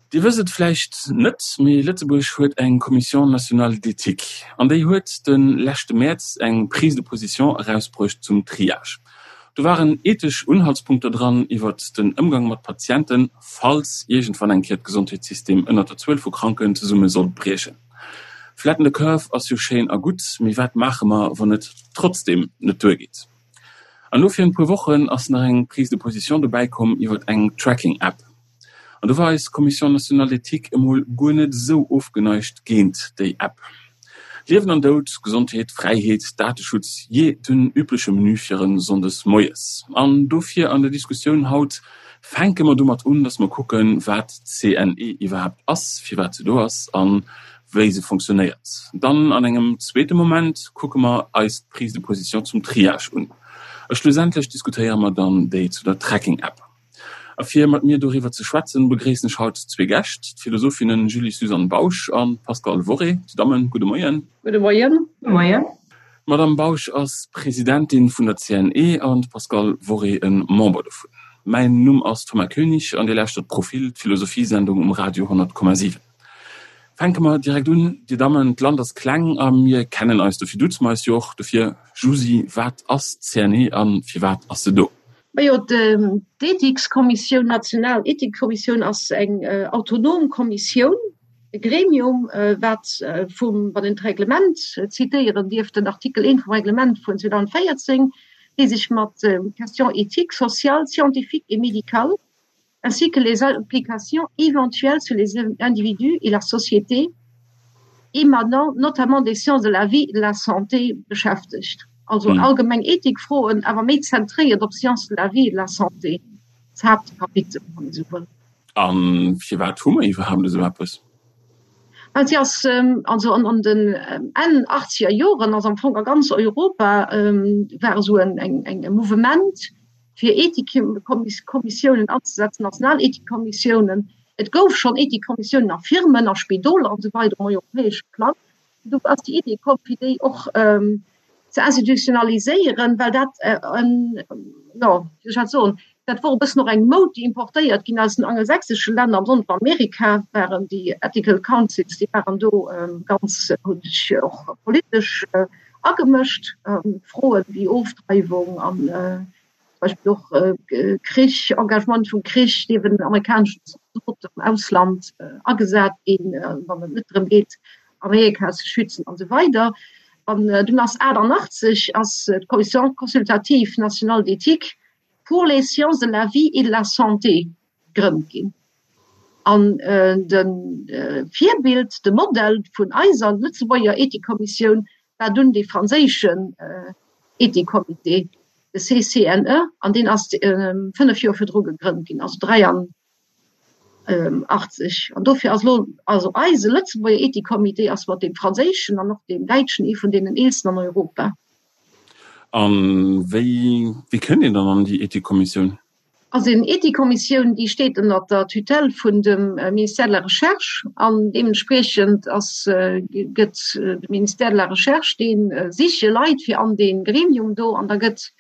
Dir wësst et vläicht net, mee Lëtzebuerg huet eng Commission nationale d'éthique an déi huet de leschte Mäerz eng Prise de position erausbruecht zum Triage. Do waren ethesch Unhaltspunkter dran iwwert den Ëmgang mat Patienten, falls iergendwann eng Kéier d'Gesondheetssystem ënnert der Zuel vu Kranken zesumme sollt briechen. Flatten the curve ass jo schéin a gutt, mee wat maache mer, wann et trotzdeem net duergeet? An elo virun e puer Wochen ass nach eng Prise de position dobäi komm iwwert eng Tracking-App. An do war eis Commission nationale d'éthique emol guer net esou ofgeneigt géint déi App. Liewen an Doud, Gesondheet, Fräiheet, Dateschutz, jee, den übleche Menü fir e Sonndes moies. An dofir an der Diskussioun haut fänke mer domat un, dass mer kucken, wat d'CNE iwwerhaapt ass, firwat se do ass a wéi se fonctionnéiert. Dann an engem zweete Moment kucke mer eis d'Prise de position zum Triage un. A schlussendlech diskutéiere mer dann déi zu der Tracking-App. A fir mat mir doriwwer ze schwätzen, begréissen ech haut zwee Gäscht, d'Philosophinnen Julie-Suzanne Bausch a Pascale Worré. Dir Dammen, gudde Moien. Gudde Moien. Gudde Moien. D'Madame Bausch ass Presidentin vun der CNE an d'Pascale Worré e Member dovun. Mäin Numm ass Thomas Koenig an Dir lauschtert Profil, d'Philosophiesendung um Radio 100,7. Fänke mer direkt un, Dir Dammen, d'Land ass kleng a mir kennen eis, dofir duze mer eis jo och. Dofir, Jusy, wat ass d'CNE a firwat ass se do? Majo, d'Ethikskommissioun, national Ethikkommissioun ass eng autonom Kommissioun, e Gremium, wat vum, wann een d'Reglement zitéieren dierf, den Artikel 1 vum Reglement vun 2014, dee sech mat Questions éthiques, sociales, scientifiques et médicales ainsi que les implications éventuelles sur les individus et la société émanant notamment des sciences de la vie et de la santé beschäftegt. Also allgemeng Ethikfroen, awer méi zentréiert op Sciences de la vie et de la santé, d'Haaptkapitel, wann ee sou wëll. A firwat hu mer iwwerhaapt esou eppes? Well si ass, also an den Enn achtzeger Joren ass am Fong a ganz Europa war esou en e Mouvement, fir Ethikkommissiounen anzesetzen, national Ethikkommissiounen. Et gouf schonn Ethikkommissiounen a Firmen, a Spidoler an esou weider um europäesche Plang. Do ass déi Idee komm, fir déi och ze institutionaliséieren, well dat en, jo, wéi soll ech dat soen, dat wor e bëssen och eng Moud, déi importéiert ginn aus den angelsächsesche Länner, besonnesch an Amerika waren déi Ethical Councils, déi waren do ganz, hunn sech och politesch agemëscht. Froen wéi Ofdreiwung an zum Beispill och Krich, Engagement vum Krich, dierfen amerikaneschen Zaldoten am Ausland agesat ginn, wann et net drëm geet, Amerika ze schützen an esou weider. An dunn ass 88 ass d'Commission consultative nationale d'éthique pour les sciences de la vie et de la santé gegrënnt ginn. An de Virbild, de Modell vun eiser Lëtzebuerger Ethikkommissioun war dunn dee franséischen Ethikcomité, de CCNE, an deen ass 5 Joer virdru gegrënnt ginn, also 83. An dofir ass elo also eise Lëtzebuerger Ethikcomité ass mat deem franséischen an och deem däitschen ee vun deenen eelsten an Europa. A wéi, wéi kënnt een dann an déi Ethikkommissioun? Also eng Ethikkommissioun, déi steet ënner der Tutelle vun dem Ministère de la Recherche an deementspriechend ass, gëtt de Ministère de la Recherche, dee siche Leit fir an dee Gremium do an da gëtt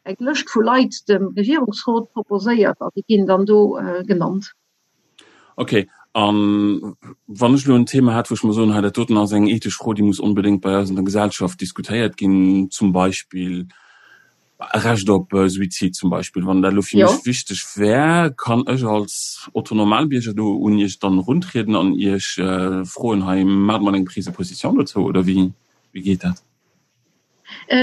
eng Lëscht vu Leit dem Regierungsrot proposéiert an déi ginn dann do genannt. Ok, a wann ech elo en Thema hätt, wou ech mer soen, hei dat doten ass eng ethesch Fro, déi muss onbedéngt bei eis an der Gesellschaft diskutéiert ginn, zum Beispill Recht op Suizid zum Beispill, wann dat elo fir mech wichteg wär, kann ech als Otto Normalbierger do un Iech dann eruntrieden an Iech froen, hei maacht mol eng Prise de position dozou, oder wéi geet dat?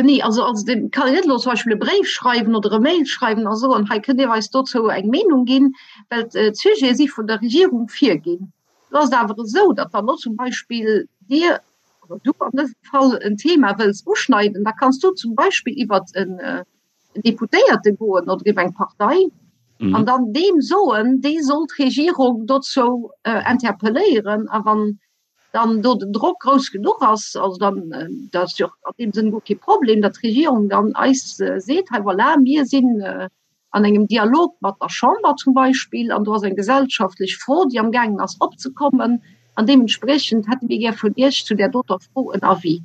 Nee, also also et kann een net elo zum Beispill e Bréif schreiwen oder e Mail schreiwen a soen, hei kënnt Dir eis dozou eng Meenung ginn, well d'Sujete si vun der Regierung virginn. Do ass et awer esou, datt wann elo zum Beispill Dir oder du an dësem Fall en Thema wëlls uschneiden, da kanns du zum Beispill iwwert en Deputéierte goen oder iwwer eng Partei an dann deem soen, dee soll d'Regierung dozou interpelléieren. A wann dann do den Drock grouss genuch ass, also dann, dat ass jo och an deem Sënn guer kee Problem, datt d'Regierung dann eis seet, hei voilà, mir sinn an engem Dialog mat der Chamber zum Beispill, an do ass eng gesellschaftlech Fro, déi amgaangen ass opzekommen, an deementspriechend hätte mir gär vun Iech zu där doter Fro en Avis.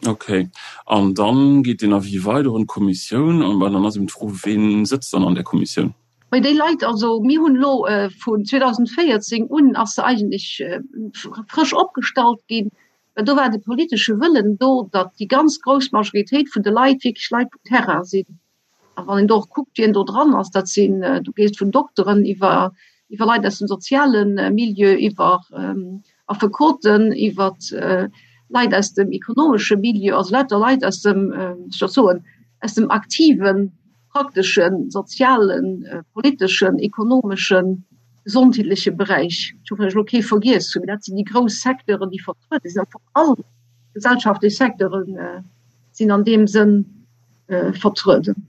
Okay. An dann geet deen Avis weider un d'Kommissioun. An dann ass eben d'Fro, Ween sëtzt dann an där Kommissioun? Bei déi Leit, also mir hunn elo vun 2014 un ass se eigentlech frësch opgestallt ginn, well do war de politesche Wëllen do, datt déi ganz grouss Majoritéit vun de Leit wierklech Leit vum Terrain sinn. A wann een do och kuckt, wien do dran ass, dat sinn, du gees vun Dokteren iwwer iwwer Leit aus dem soziale Milieu, iwwer Affekoten, iwwer Leit aus dem ekonomesche Milieu, also lauter Leit aus dem, wéi soll ech soen, aus dem aktiven prakteschen, sozialen, politeschen, ekonomeschen, gesondheetleche Beräich. Ech hoffen, datt ech elo kee vergiess hunn, mee dat sinn déi grouss Secteuren, déi vertruede sinn. Am Fong all gesellschaftlech Secteure sinn an deem Sënn vertrueden.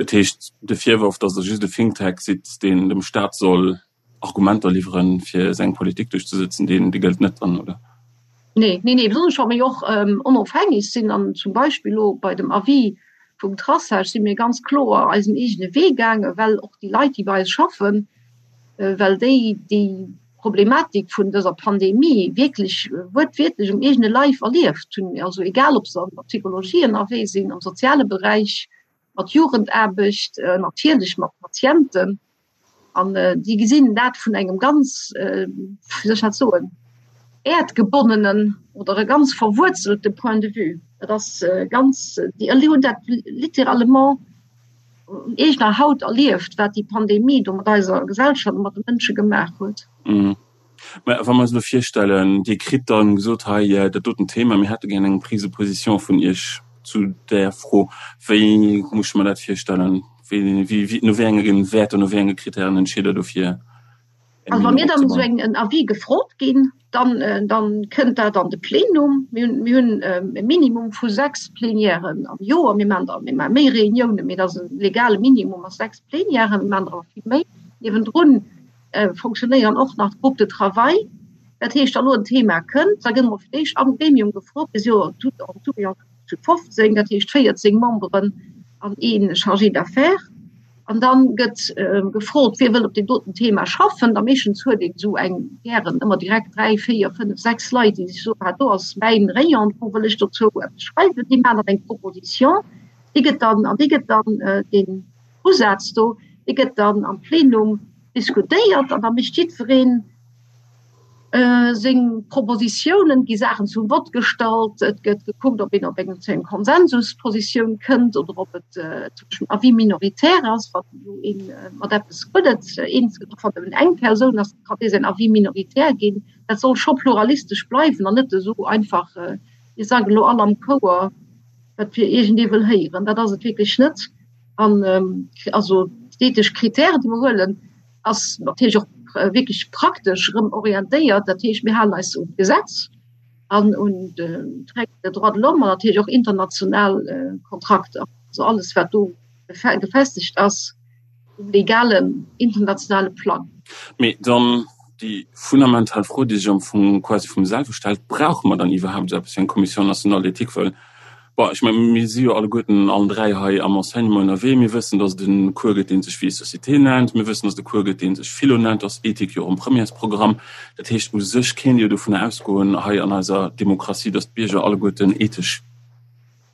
Dat heescht, de Virworf, datt Der just e Think Tank sidd, deen dem Staat soll Argumenter liwweren, fir seng Politik duerchzesëtzen, deen dee gëllt net dann, oder? Nee, nee, nee, besonnesch wa mir jo och onofhängeg sinn an zum Beispill elo bei dem Avis vum Traçage si mir ganz kloer eisen eegene Wee gaangen, well och déi Leit, déi bei eis schaffen, well déi déi Problematik vun dëser Pandemie wierklech wuertwiertlech um eegene Leif erlieft hunn, also egal ob se an der Psychologie ënnerwee sinn, am soziale Beräich, mat Jugendaarbecht, natierlech mat Patienten. An déi gesinn dat vun engem ganz, wéi soll ech dat soen, äerdgebonnenen oder e ganz verwuerzelte Point de vue. Dat ass ganz, déi hunn dat littéralement un eegener Haut erlieft, wat déi Pandemie do mat eiser Gesellschaft a mat de Mënsche gemaach huet. Mä wa mer eis elo virstellen, Dir kritt dann gesot, hei dat doten Thema, mir hätte gär eng Prise de position vun Iech zu där Fro, wéi muss ech mer dat virstellen? Wéi, wéi, no wéi enge Wäerter, no wéi enge Kritären entscheet Der dofir eng Also wa mir dann esou eng en Avis gefrot ginn, dann, dann kënnt dat an de Plenum. Mir hunn, mir hunn e Minimum vu 6 Plenièren am Joer. Mir maachen der, mir maache méi Reuniounen, mee dat ass e legale Minimum ass 6 Plenièren. Mir maachen der awer vill méi. Niewendrun fonctionnéieren och nach d'Groupes de travail. Dat heescht, wa lo en Thema kënnt, da gëtt emol fir d'éischt am Gremium gefrot, mir si jo tout en tout et en tout zu 15, dat heescht 14 Memberen an ee Chargé d'affaires. An da gëtt gefrot, wie wëll op deem doten Thema schaffen. Da meeschtens huet een esou eng gären ëmmer direkt dräi, véier, fënnef, sechs Leit, déi sech soen, ah do ass mäin Rayon, do wëll ech dozou eppes schreiwen. Déi maachen dann eng Proposition, déi gëtt dann, an déi gëtt dann deen Usaz do, dee gëtt dann am Plenum diskutéiert an da mécht jiddweree seng Propositiounen, et gi Saachen zum Vott gestallt, et gëtt gekuckt, ob een op eng zu engem Konsensuspositioun kënnt oder ob et zum Beispill en Avis minoritaire ass, wann elo ee mat eppes guer net eens gëtt, och wann nëmmen eng Persoun ass, kann dee säin Avis minoritaire ginn. Dat soll scho pluralistesch bleiwen an net esou einfach, mir sagen elo all am Chouer, wat fir iergendee wëll héieren. Dat ass et wierklech net. An also d'ethesch Kritären, déi mer huelen, ass natierlech och wierklech praktesch erëm orientéiert. Dat heescht, mir halen eis un d'Gesetz an un d'Règles des droits de l'homme an natierlech och international Kontrakter. Also alles, wat do gefestegt ass um legalen internationale Plang. Mee dann déi fundamental Fro, déi sech am Fong quasi vum selwe stellt, Brauche mer dann iwwerhaapt esou eppes wéi eng Commission nationale d'éthique? Well Bon, ech mengen, mir si jo alleguerten allen 3 hei am Enseignement ënnerwee. Mir wëssen, dass et e Cours gëtt, dee sech Vie et société nennt. Mir wëssen, dass et e Cours gëtt, dee sech Philo nennt. Do ass Ethik jo och am Premièresprogramm. Dat heescht, u sech kéint ee jo dovunner ausgoen hei an eiser Demokratie, dass d'Bierger alleguerten ethesch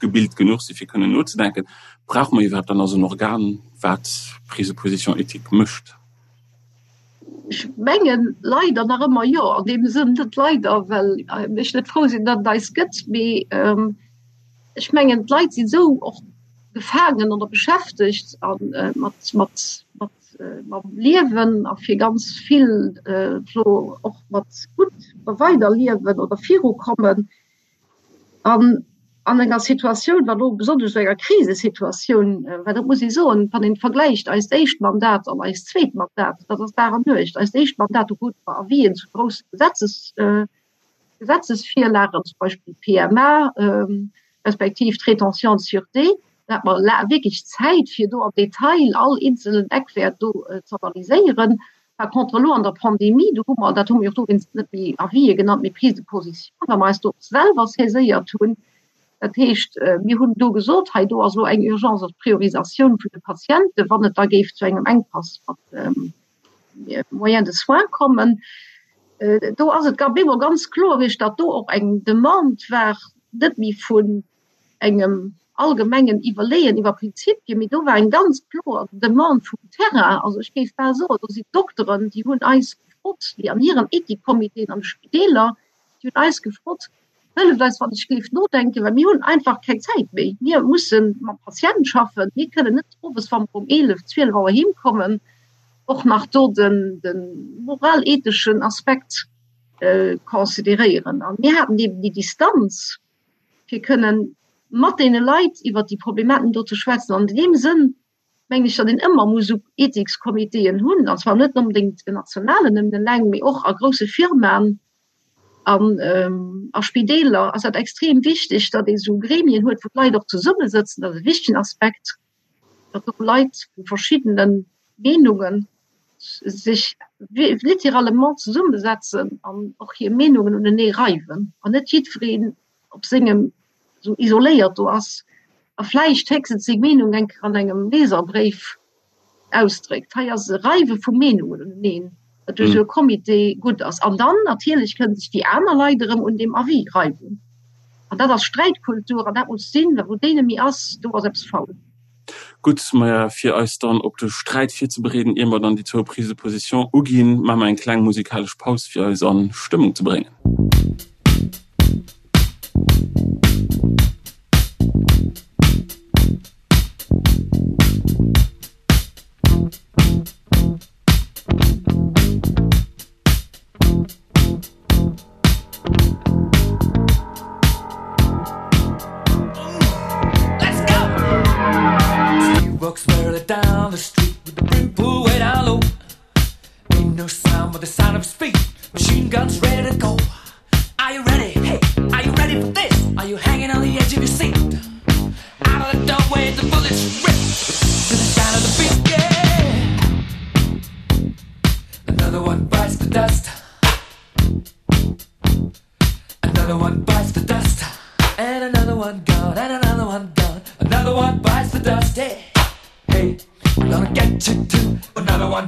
gebilt genuch si fir kënnen nozedenken. Brauche mer iwwerhaapt dann also en Organ, wat Prise de position éthique mécht? Ech mengen leider nach ëmmer jo, an deem Sënn net leider, well ech net frou sinn, datt et eis gëtt, mee ech mengen d'Leit sinn esou och gefaangen oder beschäftegt a mat mat mat mam Liewen a fir ganz vill elo och mat gutt weiderliewen oder virukommen, An an enger Situatioun, wat elo besonnesch esou enger Krisesituatioun, well dat muss ee soen, wann een vergläicht eist éischt Mandat an eist zweet Mandat, dat ass Dag an Nuecht. Eist éischt Mandat, do krute mer Avisen zu grousse Gesetzes, Gesetzesvirlagen, zum Beispill d'PMA respektiv d'Rétention de sûreté, do hate mer wierklech Zäit, fir do am Detail all eenzelen Eckwäert do ze analyséieren. Par contre elo an der Pandemie, do hu mer, dat hu mir och dowéinst net méi Avisë genannt, mee Prise de position, well mer eis do och selwer saiséiert hunn. Dat heescht, mir hunn do gesot, hei do ass elo eng Urgence als Priorisatioun vun de Patienten, wann et da géif zu engem Enkpass mat Moyens de soins kommen. Do ass et op eemol ganz kloer gewiescht, datt do och eng Demande war, net méi vun engem. allgemengen Iwwerleeën iwwer Prinzipien, mee do war eng ganz kloer Demande vum Terrain. Also ech géif bal soen, do sinn d'Dokteren, déi hunn eis gefrot, déi an hiren Ethikcomitéen an de Spideeler, déi hunn eis gefrot, Hëlleft eis wann ech géif nodenken, well mir hunn einfach keng Zäit méi. Mir musse mam Patient schaffen. Mir kënnen net owes, wa mer um 11, 12 Auer heem kommen, och nach do den, de moral-etheschen Aspekt consideréieren. A mir haten eben déi Distanz, fir kënnen mat deene Leit iwwert déi Problematen do ze schwätzen. An deem Sënn mengen ech, datt een ëmmer muss esou Ethikscomitéen hunn, an zwar net onbedéngt en nationalen nëmmen eleng, mee och a grousse Firmaen an a Spideeler ass dat extrem wichteg, datt ee esou Gremien huet, wou d'Leit och zesummesëtzen. Dat ass e wichtegen Aspekt, datt do Leit vu verschiddene Meenunge sech littéralement zesummesetzen an och hir Meenungen unenee reiwen an net jiddwereen op sengem esou isoléiert do ass a vläicht héchstens seng Meenung eng Kéier an engem Leserbréif ausdréckt. Hei ass e Reiwe vu Meenungen uneneen, wat duerch esou e Comité gutt ass. An dann natierlech kënnen sech déi aner Leit erëm un deem Avis reiwen. An dat ass Sträitkultur an dat muss sinn, well wou déi net méi ass, do ass eppes faul. Gutt, maja, fir eis dann op de Sträit virzebereeden, ier mer dann déi zwou Prises de position uginn, maache mer eng kleng musikalesch Paus, fir eis a Stëmmung ze bréngen. Another one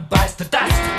bites the dust.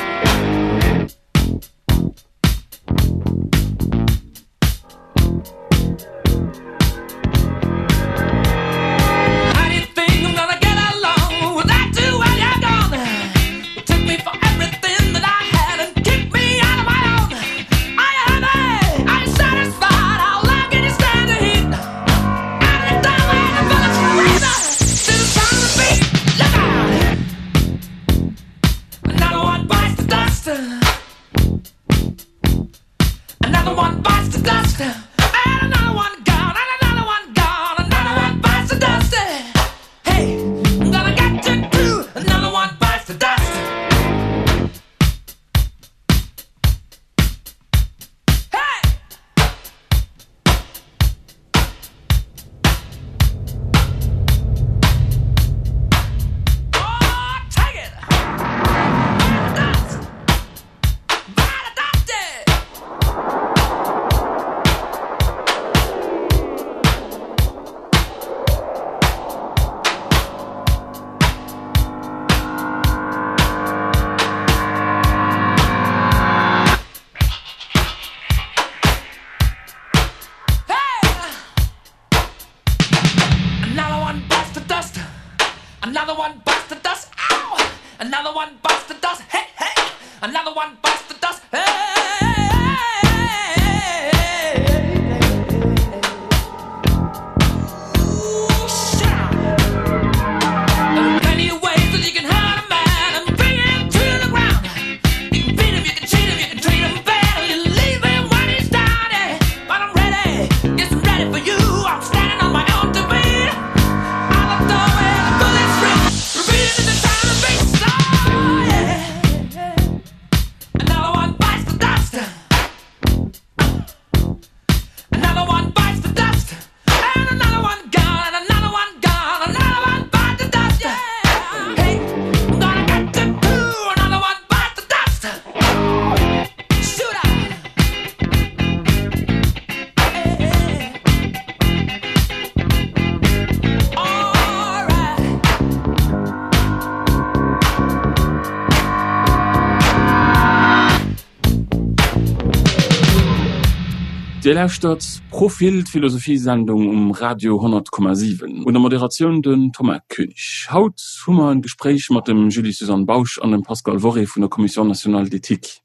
Dir lauschtert Profil, d'Philosophiesendung um Radio 100,7. Un der Moderatioun den Thomas Koenig. Haut hu mer en Gespréich mat dem Julie-Suzanne Bausch an dem Pascal Worré vun der Commission nationale d'éthique.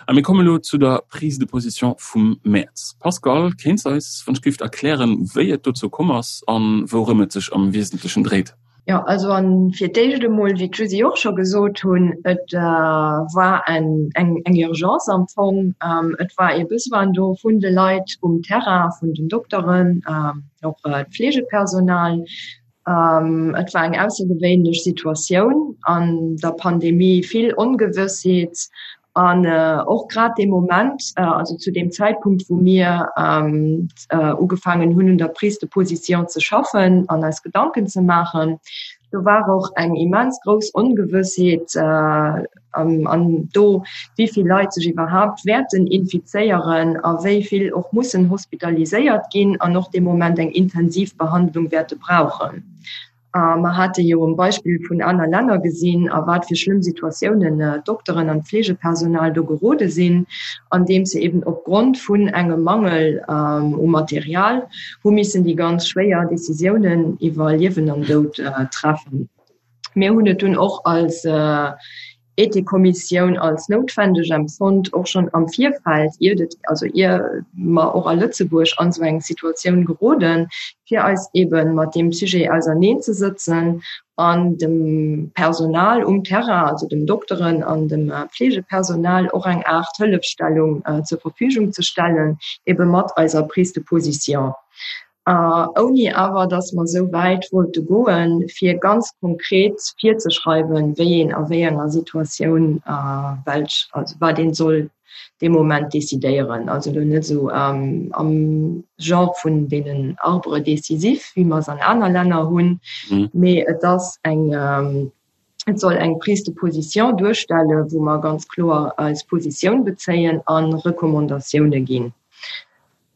A mir kommen elo zu der Prise de position vum Mäerz. Pascal, kéints eis wann ech gift erklären, wéi et dozou komm ass an wourëm et sech am Wiesentlechen dréit? Jo, also an fir d'éischt emol, wéi d'Jusy och scho gesot hunn, et war eng eng Urgence am Fong. Et war ee Besoin do vun de Leit um Terrain, vun den Dokteren, och d'Fleegepersonal. Et war eng aussergewéinlech Situatioun an der Pandemie, vill Ongewëssheet An och grad dee Moment, also zu deem Zäitpunkt, wou mir ugefaangen hunn, un der Prise de position ze schaffen an eis Gedanken ze maachen, do war och eng immens grouss Ongewëssheet an do, wéi vill Leit sech iwwerhaapt wäerten infizéieren a wéi vill och mussen hospitaliséiert ginn an och dee Moment eng intensiv Behandlung wäerte brauchen. A mer hate jo um Beispill vun aner Länner gesinn, a wat fir schlëmm Situatiounen d'Dokteren an d'Fleegepersonal do gerode sinn, andeems se eben opgrond vun engem Mangel u Material hu missen déi ganz schwéier Décisiounen iwwer Liewen an Doud treffen. Mir hunn et dunn och als Ethikkommissioun als noutwendeg empfonnt, och schonn am Virfeld, iert et, also ier mer och a Lëtzebuerg an esou eng Situatioun geroden, fir eis eebe mat deem Sujet auserneenzesëtzen an dem Personal um Terrain, also dem Dokteren an dem Pflegepersonal och eng Aart Hëllefstellung zur Verfügung ze stellen, eebe mat eiser Prise de position. Ouni awer datt mer esou wäit wollte goen, fir ganz konkret virzeschreiwen, wéi een a wéi enger Situatioun welch, also wat ee soll dee Moment decidéieren. Also elo net esou am Genre vun deenen Arbres décisifs, wéi mer se an aner Länner hunn, mee et ass eng, et soll eng Prise de position duerstellen, wou mer ganz kloer eis Positioun bezéien a Recommandatioune ginn.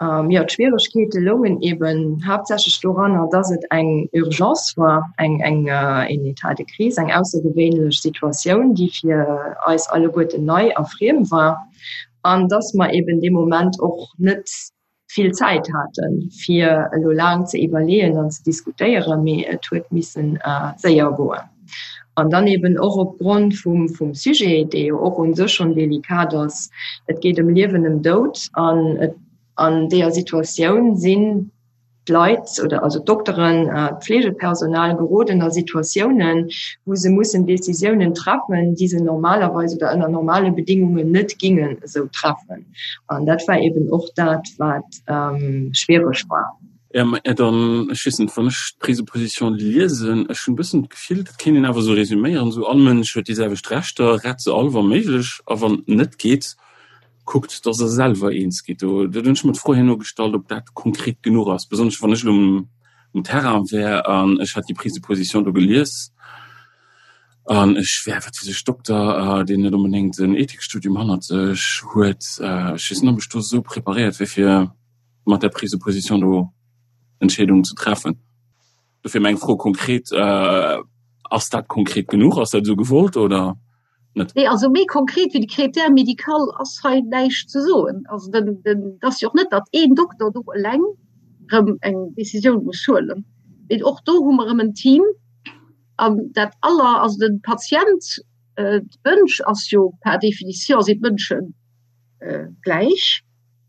Jo, d'Schwieregkeete loungen eben haaptsächlech doranner, dass et eng Urgence war, eng, eng, een État de crise, eng aussergewéinlech Situatioun, déi fir eis alleguerten nei a friem war, an dass mer eben dee Moment och net vill Zäit haten, fir elo laang ze iwwerleeën an ze diskutéieren, mee et huet missen séier goen. An dann eben och opgrond vum, vum Sujet, dee jo och u sech schonn delikat ass, et geet ëm Liewen, ëm Doud, an et, an deeër Situatioun sinn d'Leit oder also d'Dokteren, d'Fleegepersonal geroden a Situatiounen, wou se mussen Décisiounen treffen, déi se normalerweis oder ënner normale Bedingungen net gingen esou treffen. An dat war eben och dat, wat schwiereg war. Ja, mä dann, ech weess net, wann ech d'Prise de position liesen, ech hunn e bëssen d'Gefill, dat kéint een awer esou resüméieren, esou all Mënsch huet déi selwecht Rechter, rett se all wa méiglech, a wann et net geet, kuckt, datt Der selwer eens gitt. Do hunn ech mer d'Fro herno gestallt, ob dat konkret genuch ass, besonnesch wann ech elo um Terrain wär an ech hätt déi Prise de position do gelies an ech wär, wat weess ech, Dokter, deen net onbedéngt en Ethikstudium hannert sech huet. Ech weess net, ob ech do esou preparéiert wier fir mat der Prise de position do Entscheedungen ze treffen. Dofir meng Fro konkret, Ass dat konkret genuch? Ass dat esou gewollt oder net? Nee, also méi konkret wéi de Critère médical ass hei näischt ze soen. Also den, den, et ass jo och net, datt een Dokter do eleng erëm eng Décisioun muss huelen, mee och do hu mer erëm en Team an dat aller, also de Patient, d'Mënsch ass jo par définition sinn d'Mënsche gläich.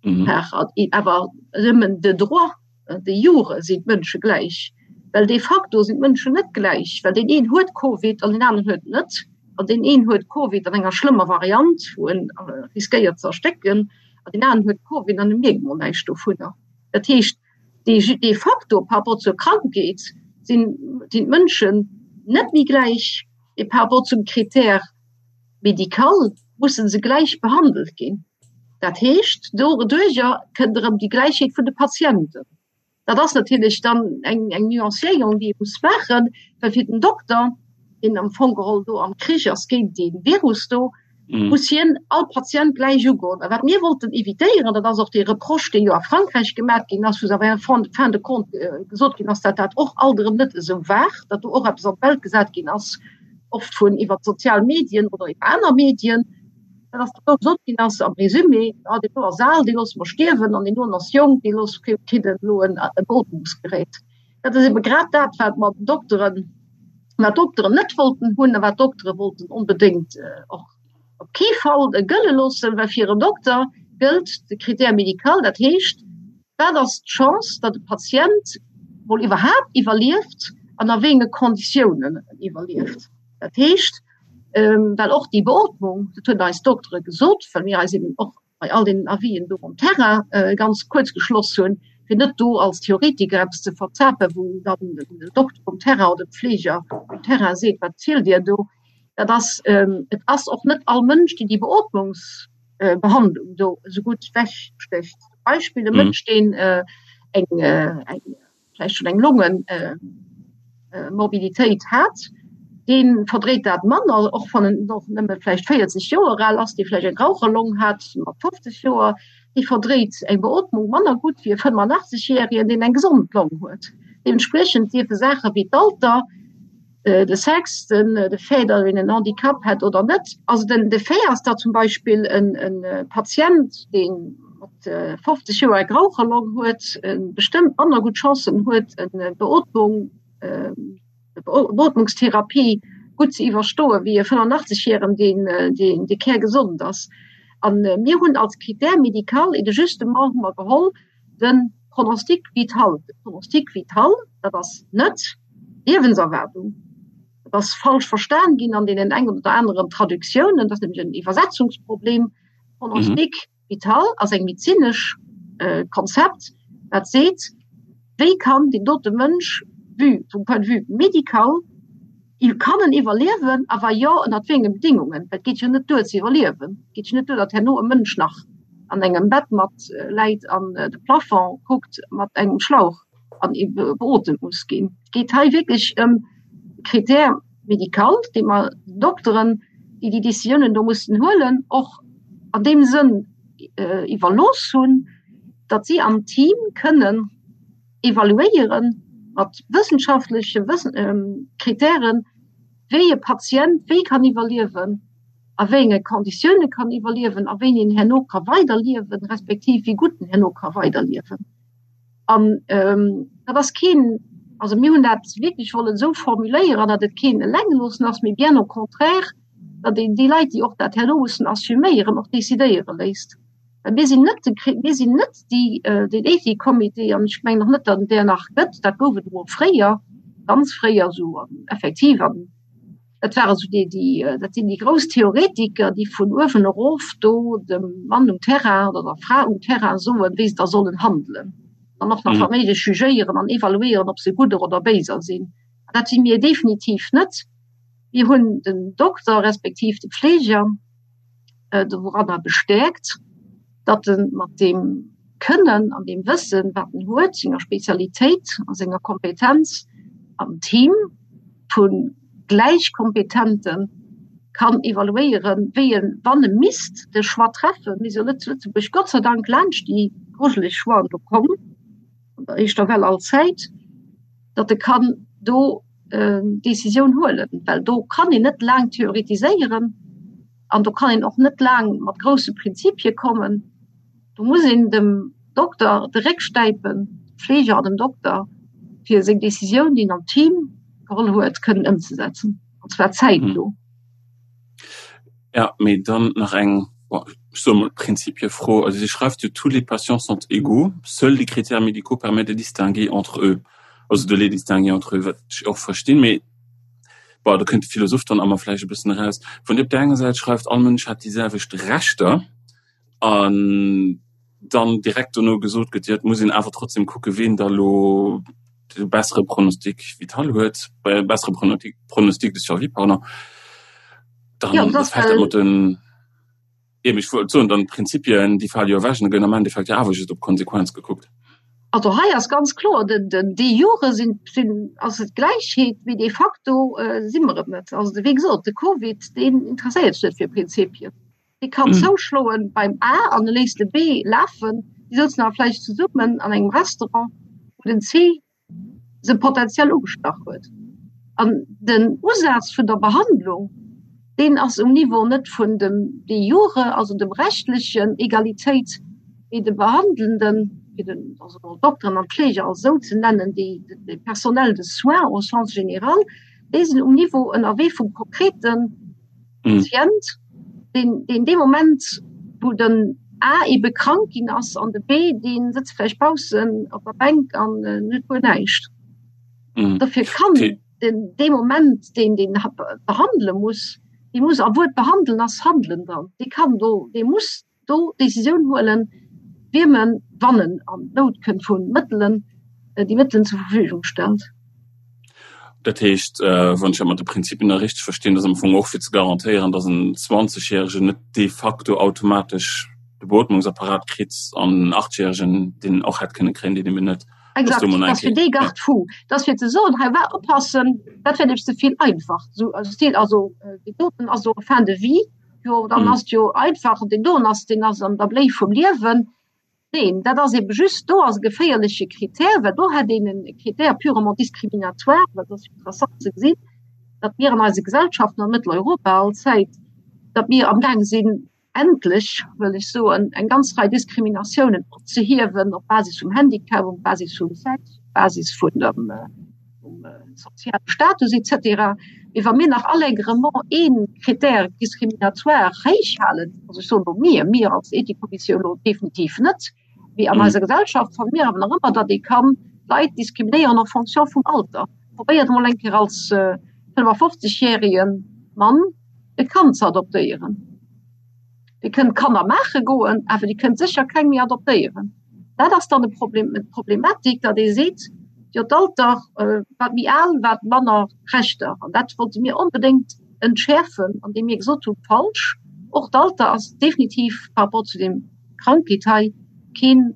Awer nëmmen de droit, de jure sinn d'Mënsche gläich, well de facto sinn d'Mënschen net gläich, well deen een huet Covid an deen aneren huet et net, an deen een huet Covid an enger schlëmmer Variant, wou en riskéiert ze erstécken, an deen aneren huet Covid an e mierkt mol näischt dovunner. Dat heescht, de facto par rapport zur Krankheet sinn d'Mënschen net méi gläich, mee par rapport zum Critère médical musse se gläich behandelt ginn. Dat heescht, doduerjer kënnt erëm déi Gläichheet vun de Patienten. Dat ass natierlech dann eng, eng Nuancéierung, déi ee muss maachen, well fir den Dokter, deen am Fong geholl do am Krich ass géint dee Virus do, muss hien all Patient gläich ugoen. A wat mir wollten évitéieren, dat ass och dee Reproche, dee jo a Frankräich gemaach ginn ass, wou se awer en fin de compte gesot ginn ass, datt dat och alt erëm net esou war, datt do och eppes an d'Welt gesat ginn ass, oft vun iwwer d'sozial Medien oder iwwer aner Medien. Dat ass do gesot ginn ass am Résumé, ah deen do ass al, dee loosse mer stierwen an deen doen ass jonk, dee loosse kritt elo en Beootmungsgerät. Dat ass ebe grad dat, wat mer den Dokteren, wat d'Dokteren net wollten hunn a wat d'Doktere wollten onbedéngt och op kee Fall gëlle loossen, well fir en Dokter gëllt de Critère médical, dat heescht, wat ass d'Chance, datt e Patient mol iwwerhaapt iwwerlieft an a wéi enge Konditiounen en iwwerlieft. Dat heescht, well och déi Beootmung, dat hunn eis Doktere gesot, well mir eis eben och bei all deenen Avisen do um Terrain ganz kuerz geschloss hunn, fir net do als Theoretiker eppes ze verzapen, wou dann den Dokter um Terrain oder de Pfleger um Terrain seet, wat zielt Dir do? Dat ass, et ass och net all Mënsch, deen déi Beootmungsbehandlung do esou gutt wegstécht. Zum Beispill e Mënsch, deen eng, eng vläicht schonn eng Longenmorbiditéit hat, dee verdréit dat manner, och wann en och nëmme vläicht 40 Joer al ass, dee vläicht eng Raucherlong hat mat 50 Joer, dee verdréit eng Beootmung manner gutt wéi e 85 Järegen, deen eng gesond Long huet. Deementspriechend dierfe Saache wéi d'Alter, de Sex, den de Fait, datt een en Handicap hätt oder net. Also den de Fait ass, datt zum Beispill en e Patient, dee mat 50 Joer eng Raucherlong huet, bestëmmt manner gutt Chancen huet, eng Beootmung, Beootmungstherapie gutt ze iwwerstoen, wéi e 85 Jären, deen deen dee kärgesond ass. An mir hunn als Critère médical et de justement hu mer geholl, de Pronostic vital. De Pronostic vital, dat ass net d'Liewenserwaardung. Dat ass falsch verstan ginn an deenen eng oder aneren Traductiounen. Dat ass nämlech en Iwwersetzungsproblem. Pronostic vital ass eng medezinesch Konzept, dat seet, wéi kann deen dote Mënsch vue, vum Point de vue médical, kann en iwwerliewen a wa jo, ënnert wéi enge Bedingungen? Well et geet jo net duer ze iwwerliewen. Et geet jo net duer, datt herno e Mënsch nach an engem Bett mat läit an de Plafond kuckt mat engem Schlauch an beotemt muss ginn. Et geet hei wierklech ëm e Critère médical, dee mer den Dokteren, déi déi Décisiounen do mussen huelen, och an deem Sënn iwwerlooss hunn, datt si am Team kënnen evaluéiere mat wëssenschaftleche Kritären, wéi e Patient wéi kann iwwerliewen, a wéi enge Konditioune kann iwwerliewen a wéini en herno ka weiderliewen, respektiv wéi gutt en herno ka weiderliewen. An dat ass keen, also mir hunn dat wierklech wollen esou formuléieren, datt et keen Elengeloossen ass, mee bien au contraire, datt een déi Leit, déi och dat herno mussen assuméieren, och decidéiere léisst. Well mir sinn net de, mir sinn net déi, den Ethikcomité, an ech mengen och net, datt et där nach gëtt, dat gouf et emol fréier, ganz fréier esou effektiv, an dat ware sou déi, déi, dat sinn déi grouss Theoretiker, déi vun uewen erof do dem Mann um Terrain oder der Fra um Terrain soen, wéi se da sollen handelen an och nach wa méiglech jugéieren an evaluéieren, ob se gudder oder béiser sinn. Dat si mir definitiv net. Mir hunn den Dokter respektiv de Pfleger, doranner bestäerkt, datt e mat deem Kënnen an deem Wëssen, wat en huet, senger Spezialitéit a senger Kompetenz am Team vu Gläichkompetente kann evaluéieren, wéi en, wann e misst de Choix treffen, mir si jo net zu Lëtzebuerg Gott sei Dank laanscht déi grujeleg Choixen do komm, an der éischter Well allzäit, datt e kann do Décisioun huelen, well do kann een net laang theoretiséieren an do kann een och net laang mat grousse Prinzipie kommen. Do muss een dem Dokter de Réck stäipen, dem Fleeger an dem Dokter, fir seng Décisioun, déi en am Team geholl huet, kënnen ëmzesetzen, an zwar zäitno. Ja, mee dann nach eng, bon, ech soe mol Prinzipiefro. Also Dir schreift jo, Tous les patients sont égaux, seuls les critères médicaux permettent de distinguer entre eux. Also de les distinguer entre eux, wat ech och verstinn, mee bon, do kënnt de Philosoph dann a mer vläicht e bëssen eraus. Wann Dir op där enger Säit schreift, all Mënsch hätt déi selwecht Rechter an dann direkt dono gesot gëtt, jo et muss een awer trotzdem kucke ween da lo de bessere Pronostic vital huet, äh, bessere Pronostic, Pronostic de survie, pardon, dann ja, das fällt dat mat den eben, ech wollt soen, dann d'Prinzipien, déi fale jo ewech an da gëtt am Endeffekt jo awer just op d'Konsequenz gekuckt. Also hei ass ganz kloer, den, den, de jure sinn, sinn, ass et Gläichheet, mee de facto äh, si mer et net. Also wéi gesot, de Covid, deen interesséiert sech net fir Prinzipien. Dee kann zouschloen beim A an e léisst de B lafen. Déi souzen awer vläicht zesummen an engem Restaurant, wou den C se potenziell ugestach huet. An den Usaz vun der Behandlung, Deen ass um Niveau net vun dem de jure, also dem rechtlechen Egalitéit, mee de Behandelnden, fir den, also d'Dokteren an d'Fleeger als esou ze nennen, déi, de Personnel de soins au sens général, déi sinn um Niveau ënnerwee vum konkrete Patient, deen, deen dee Moment, wou den A ebe krank ginn ass an de B, dee sëtzt vläicht baussen op der Bänk an huet guer näischt. Dofir kann den dee Moment, deen deen behandele muss, dee muss, a Wuert behandelen ass handelen dann, dee kann do, dee muss do d'Decisioun huelen, wiem en, wann en an Nout kënnt vu Mëttelen, déi Mëttelen zur Verfügung stellt. Dat heescht, wann ech dat mat de Prinzipien da richteg verstinn, dass am Fong och fir ze garantéieren, dass en Zwanzegjäregen net de facto automatesch de Beotmungsapparat kritt an en Achtjäregen, deen en och hätt kënne kréien, deen eben net. Exakt, dat ass fir dee Garde-fou. Dat ass fir ze soen, hei war oppassen, dat wär nämlech ze vill einfach. Esou, also et also deen doten ass jo en fin de vie, jo dann ass et jo einfach, deen doen ass, deen ass an der Bléi vum Liewen. Neen, dat ass ebe just, do ass e geféierleche Critère, well do hätt een e Critère purement discriminatoire, well et ass jo interessant ze gesinn, datt mir an eise Gesellschaften an Mëtteleuropa allzäit, datt mir amgaang sinn, endlech, wëll ech soen, eng ganz Rei Diskriminatiounen opzehiewen op Basis vum Handicap, op Basis vum Sex, op Basis vun dem soziale Status et cetera. Mee wa mir nach allègrement ee Critère discriminatoire héich halen, also ech soen elo mir, mir als Ethikkommissioun elo definitiv net, mee an eiser Gesellschaft fanne mir awer nach ëmmer, datt ee kann Leit diskriminéieren en fonction vum Alter. Probéiert emol eng Kéier als 55 järege Mann e Kand ze adoptéieren. Dir kënnt Kanner maache goen, awer Dir kënnt sécher keng méi adoptéieren. Dat ass dann e Problem, d'Problematik, datt ee seet, jo d'Alter, wat méi al, wat manner Rechter. An dat wollte mir onbedéngt entschäerfen, andeem mir gesot hunn, falsch, och d'Alter ass definitiv par rapport zu deem Krankheet hei keen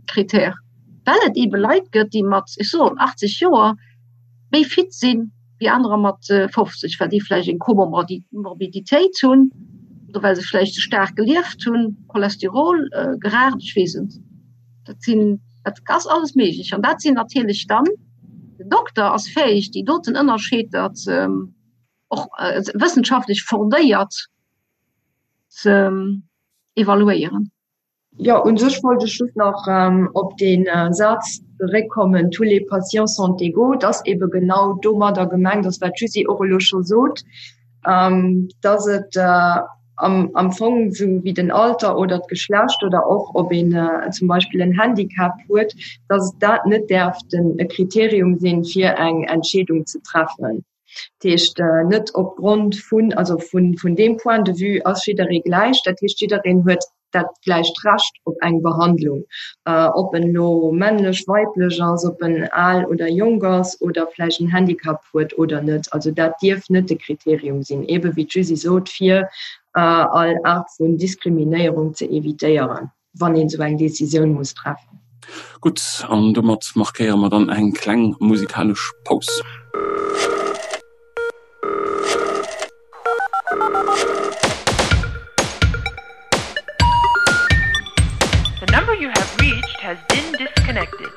Critère, well et eebe Leit gëtt, déi mat, ech soen, 80 Joer méi fit sinn wéi anerer mat 50, well déi vläicht eng Komorbiditéit hunn oder well se vläicht ze staark gelieft hunn, Cholesterol, geraacht, ech weess et. Dat sinn, dat ass alles méiglech. An dat sinn natierlech dann, den Dokter ass fäeg, déi doten Ënnerscheeder ze, och wëssenschaftlech fondéiert ze evaluéieren. Jo, u sech wollt ech just nach op dee Saz zeréckkommen, Tous les patients sont égaux. Et ass eebe genau domadder gemengt ass, wat d'Jusy och elo scho sot, dass et am Fong esou wéi den Alter oder d'Geschlecht oder och ob een zum Beispill en Handicap huet, dass dat net däerf e Kriterium sinn, fir eng Entscheedung ze treffen. Dat heescht net opgrond vun, also vun, vun deem Point de vue ass jidderee gläich. Dat heescht, jiddereen huet dat gläicht Recht op eng Behandlung, ob en elo männlech, weiblech ass, ob en al oder jonk ass oder vläicht en Handicap huet oder net. Also dat dierf net de Kriterium sinn, eebe wéi d'Jusy sot, fir all Aart vun Diskriminéierung ze evitéieren. wann een esou eng Decisioun muss treffen. Gutt, an domat markéiere mer dann eng kleng musikalesch Paus. The number you have reached has been disconnected.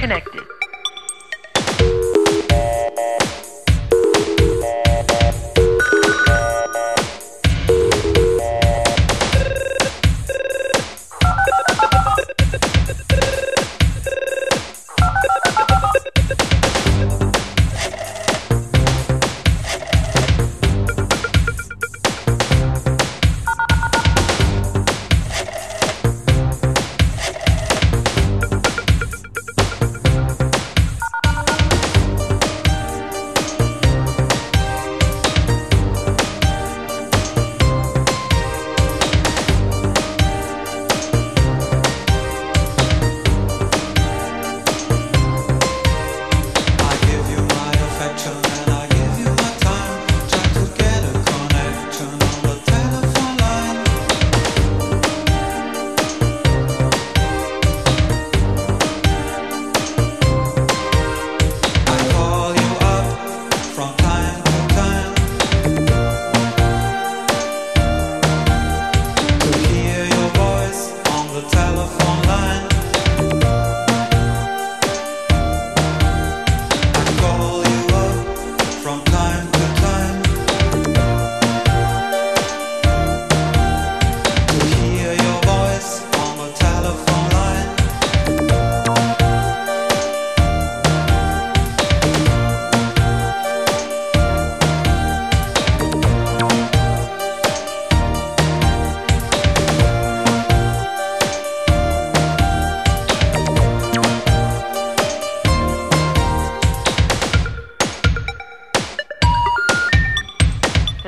disconnected.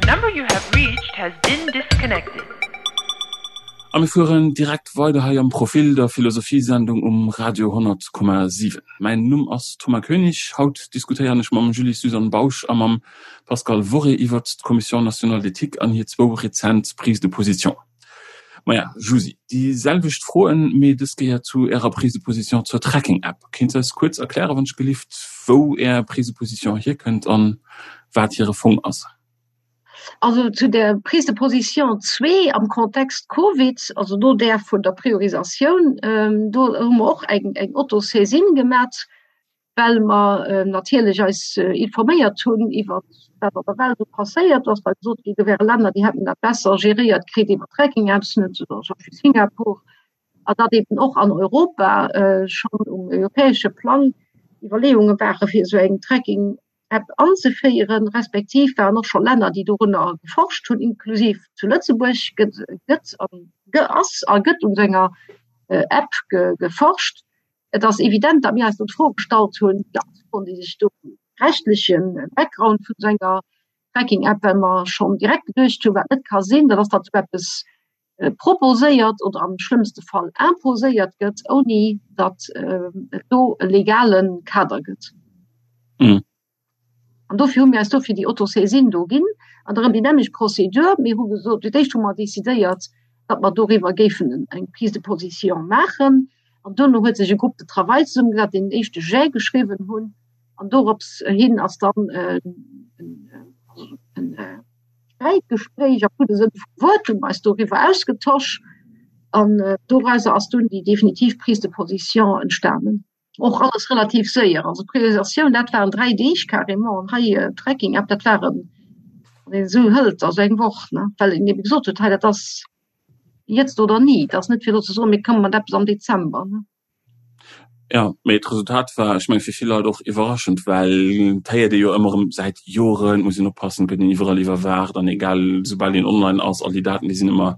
The number you have reached has been disconnected. A mir fueren direkt weider hei am Profil, der Philosophiesendung um Radio 100,7. Mäin Numm ass Thomas Koenig. Haut diskutéieren ech mam Julie-Suzanne Bausch a mam Pascal Worré iwwert d'Commission nationale d'éthique an hir zwou rezent Prises de position. Maja, Jusy, déi selwecht Froen, mee dës Kéier zu Ärer Prise de position zur Tracking-App. Kéints eis kuerz erklären, wann ech gelift, wou Är Prise de position hierkënnt an wat hire Fong ass? Also zu der Prise de position zwee am Kontext Covid, also no där vun der Priorisatioun, do hu mer och eng Autosaisine gemat, well mer natierlech eis informéiert hunn iwwer wat an der Welt esou passéiert ass, well gesot ginn, do wäre Länner, déi hätten dat besser geréiert kritt iwwer Tracking-Apps, zum Beispill Singapur, a datt eben och an Europa schonn um europäesche Plang Iwwerleeunge ware fir esou eng Tracking-App anzeféieren, respektiv waren och scho Länner, déi dorunner geforscht hunn, inklusiv zu Lëtzebuerg gëtt gëtt ass a gëtt un esou enger App geforscht. Et ass evident, datt mir eis do d'Fro gestallt hunn, déi ganz Froen, déi sech do rechtleche Background vun esou enger Tracking-App, well mer schonn direkt geduecht hunn, wat net ka sinn, dat ass, datt esou eppes proposéiert oder am schlëmmste Fall imposéiert gëtt, ouni datt et do e legale Kader gëtt. An dofir hu mir eis dofir déi Autosaisine do ginn. An erëm déi nämmlecht Procédure. Mir hu gesot, fir d'éischt hu mer decidéiert, datt mer doriwwer géifen eng Prise de position maachen. An duerno huet sech e Groupe de travail zesummegesat, deen en éischte Jet geschriwwen hunn. An dorops hin ass dann e Sträitgespréich am gudde Sënn vum Wuert, hu mer eis doriwwer ausgetosch. An dorauser ass dunn déi definitiv Prise de position entstanen. Och alles relativ séier. Also d'Priorisatioun, dat waren 3 Deeg carrément an hei äh, Tracking App, dat waren wann een esou hëlt, also eng Woch, ne? Well een ebe gesot huet, hei dat ass jetzt oder nie. Dat ass net fir elo ze soen, mir komme mat eppes am Dezember, ne? Ja, mee d'Resultat war, ech menge fir vill Leit och iwwerraschend, well et héiert ee jo ëmmer erëm säit Joren, et muss een oppassen, et gëtt een iwwerall iwwerwaacht an egal, soubal een online ass, all déi Daten, déi sinn ëmmer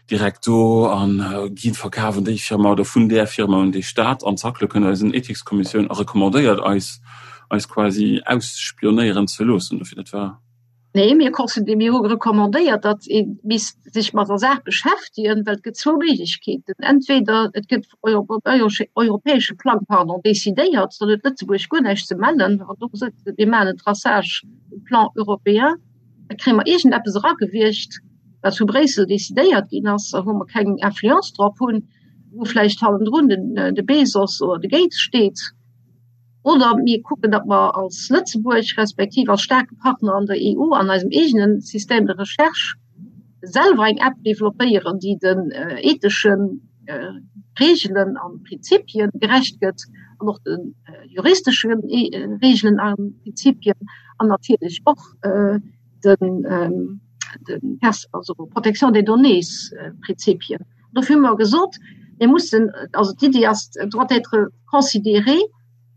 direkt do an ginn verkaf un déi Firma oder vun där Firma un dee Staat an zack, lo kënnt eis en Ethikskommissioun a recommandéiert eis, eis quasi ausspionéieren ze loossen. Dofir, dat war. Nee, mir considé-, mir hu recommandéiert, datt ee misst sech mat der Saach beschäftegen, well et gëtt zwou Méiglechkeeten, Entweder et gëtt op europäesche Plang, pardon, decidéiert, dann huet Lëtzebuerg guer näischt ze mellen, an do gesot gëtt, mir maachen en Traçage um Plan européen, da kréie mer iergendeppes eragewiergt, wat zu Bréissel decidéiert ginn ass a wou mer keng Influence drop hunn, wou vläicht hannendrun den, de Bezos oder de Gates steet. Oder mir kucken, datt mer als Lëtzebuerg respektiv als staarke Partner an der EU an eisem eegene Système de recherche selwer eng App developpéieren, déi den ethesche Reegelen a Prinzipie gerecht gëtt. an och de juristesche Regeln a Prinzipien an natierlech och den den also Protection des données Prinzipien. Dofir hu mer gesot, mir mussen, also d'Iddi ass, doit être considéré,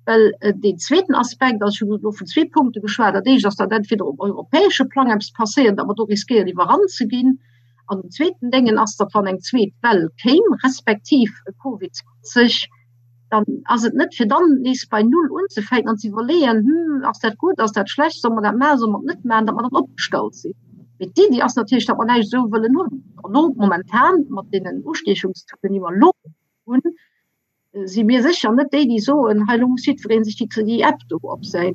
well deen zweeten Aspekt ass, ech hunn elo vun zwee Punkte geschwat, dat éischt ass, datt entweder um europäesche Plang eppes passéiert, datt mer do riskéieren iwwerrannt ze ginn, an den zweeten Déngen ass, datt wann eng zweet Well kéim, respektiv e Covid 20, dann ass et net fir dann nees bei Null unzefänken an ze iwwerleeën, hm, ass dat gutt, ass dat schlecht, solle mer dat maachen, solle mer et net maachen, datt mer dann opgestallt sinn. Mee d'Iddi ass natierlech, datt mer näischt esou wëllen hunn. Elo momentan mat deenen Ustiechungstauxen, déi mer elo hunn, si mir sécher net déi, déi soen, hei elo muss jiddweree sech déi déi App do op säin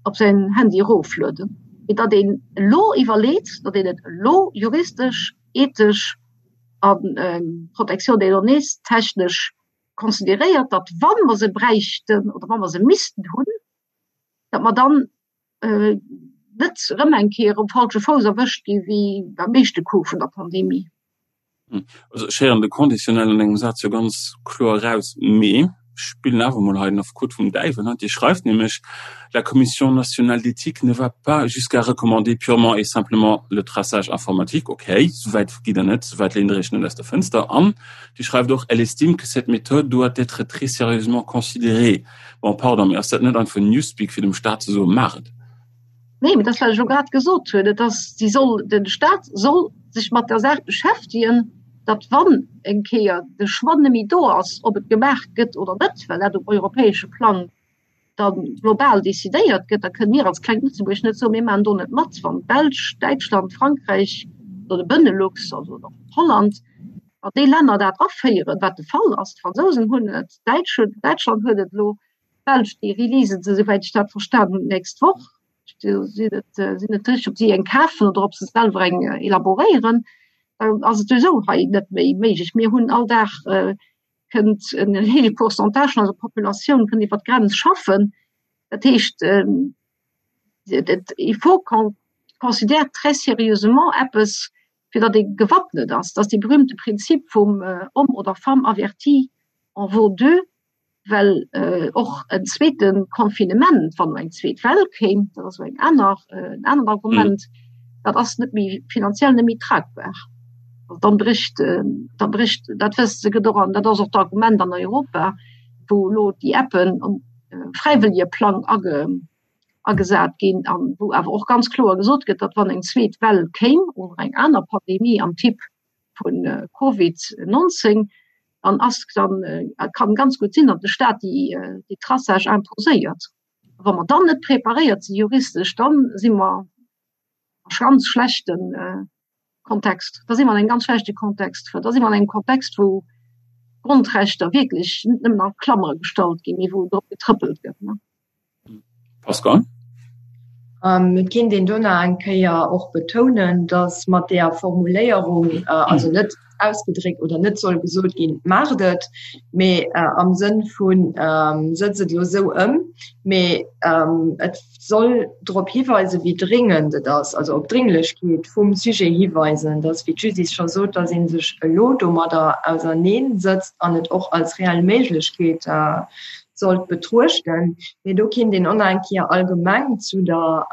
op säin Handy eroflueden. Mee datt een elo iwwerleet, datt een et elo juristesch, ethesch a Protection des données technesch consideréiert, datt wa mer se bräichten oder wa mer se missten hunn, datt mer dann net erëm eng Kéier um falsche Fouss erwëscht gi wéi beim éischte Coup vun der Pandemie. Also ech héieren de Conditionnel an engem Saz jo ganz kloer eraus, mee ech spillen awer emol hei den Affekot vum Däiwel. Dir schreift nämlech, La Commission nationale d'éthique ne va pas jusqu'à recommander purement et simplement le traçage informatique. Okay, souwäit gitt Der net, souwäit léint Der Iech net aus der Fënster. An Dir schreift och, Elle estime que cette méthode doit être très sérieusement considérée. Bon, pardon, mee ass dat net einfach Newspeak, fir dem Staat ze soen, maach et? Nee, mee dat ass, wat ech elo grad gesot hunn. Et ass, si soll, de Staat soll sech mat der Saach beschäftegen, datt wann eng Kéier de Choix net méi do ass, ob et gemaach gëtt oder net, well dat um europäesche Plang da global decidéiert gëtt, da kënne mir als klengt Lëtzebuerg net soen, mir maachen do net mat, wann d'Belsch, Däitschland, Frankräich oder de Benelux, also och Holland, wann déi Länner dat aféieren, wat de Fall ass, d'Fransousen hunn et, d'Däitsch hunn, Däitschland huet et elo, D'Belsch, déi releasen se, souwäit ech dat verstan hunn, d'nächst Woch. Ech sinn net, sinn net sécher, ob si eng kafen oder ob se selwer eng elaboréieren. Dann ass et souwisou hei net méi méiglech. Mir hunn all Dag kënnt en héije Pourcentage vun eiser Populatioun kënnt iwwer d'Grenz schaffen. Dat heescht, il faut qu'on considère très sérieusement eppes, fir datt ee gewappnet ass. Dat ass dee berühmte Prinzip vum Homme oder femme averti en vaut deux. well och en zweete Confinement, wann eng zweet Well kéim, dat ass eng aner en anert Argument, dat ass net méi finanziell net méi tragbar. Also dann bricht da bricht dat wësst se gëtt och an dat ass och d'Argument an Europa, wou elo déi Appen um fräiwëllege Plang age agesat ginn an wou awer och ganz kloer gesot gëtt, datt wann eng zweet Well kéim oder eng aner Pandemie am Typ vun Covid 19, dann ass dann kann ganz gutt sinn, datt de Staat déi déi Traçage imposéiert. Wa mer dann net preparéiert si juristesch, dann si mer a ganz schlechten Kontext. Da si mer an engem ganz schlechte Kontext. Da si mer an engem Kontext, wou d'Grondrechter wierklech net nëmmen a Klammere gestallt ginn, mee wou drop getrëppelt gëtt. Pascal? Et kéint een do nach eng Kéier och betounen, datt mat där Formuléierung, also net ausgedréckt oder net soll gesot ginn, maacht et, mee am Sënn vu sëtzt et elo esou ëm, mee et soll drop hiweisen, wéi dringend et ass, also op d'Dringlechkeet vum Sujet hiweisen, datt, wéi d'Judith scho sot, datt ee sech elo domadder auserneensëtzt an et och als reell Méiglechkeet sollt betruechten. Mee do kinnt een och nach eng Kéier allgemeng zu der,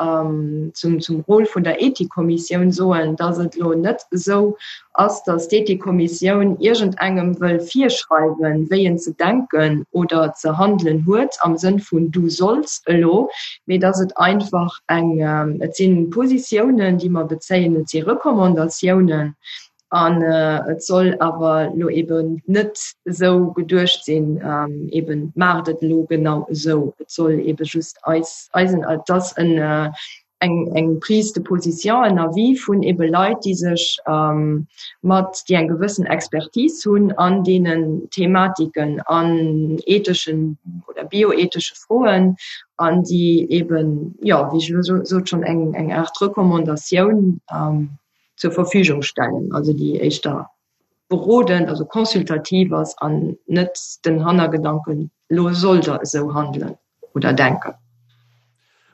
zum, zum Rôle vun der Ethikkommissioun soen, dass et elo net esou ass, dass d'Ethikkommissioun iergendengem wëll virschreiwen, wéi en ze denken oder ze handelen huet am Sënn vun du solls elo, mee dass et einfach eng, et si Positiounen, déi mer bezéien, et si Recommandatiounen, An et soll awer elo eben net esou geduecht sinn, eben maacht et elo genau esou. Et soll ebe just eis, eisen, et ass en, eng, eng Prise de position, en Avis vun ebe Leit, déi sech mat, déi eng gewëssen Expertise hunn an deenen Thematiken, an etheschen oder bioethesche Froen, an déi eben, jo, wéi ech elo sot, schonn eng, eng Aart Recommandatioun zur Verfügung stellen, also déi éischter berodend, also consultativ ass an net den Hannergedanken, elo sollt Der esou handelen oder denken.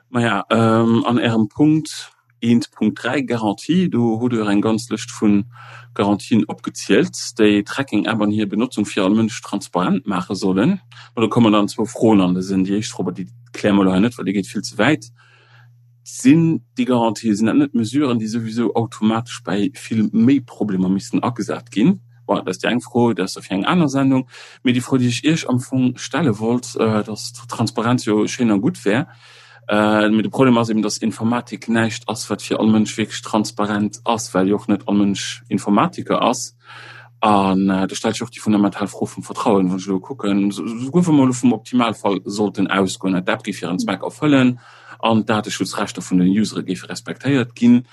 Maja, an Ärem Punkt. 1.3 Garantie. Do hutt Der eng ganz Lëscht vu Garantien opgezielt, déi d'Tracking-App an hir Benotzung fir all Mënsch transparent maache sollen. Ma do kommen dann zwou Froen an de Sënn. Déi éischt Fro, awer déi kläre mer elo hei net, well déi geet vill ze wäit, Sinn déi Garantien, sinn dat net Mesuren, déi souwisou automatesch bäi vill méi Problemer missten agesat ginn? Bon, dat ass déi eng Fro, dat ass da fir eng aner Sendung. Mee déi Fro, déi ech Iech am Fong stelle wollt, dass Transparenz jo schéin a gutt wär, mee de Problem ass eben, dass Informatik näischt ass, wat fir all Mënsch wierklech transparent ass, well jo och net all Mënsch Informatiker ass. An do stellt sech och déi fundamental Fro vum Vertrauen. Wann ech elo kucken, souguer wa mer elo vum Optimalfall sollten ausgoen, d'App géif hiren Zweck erfëllen an d'Dateschutzrechter vun den Usere géife respektéiert ginn,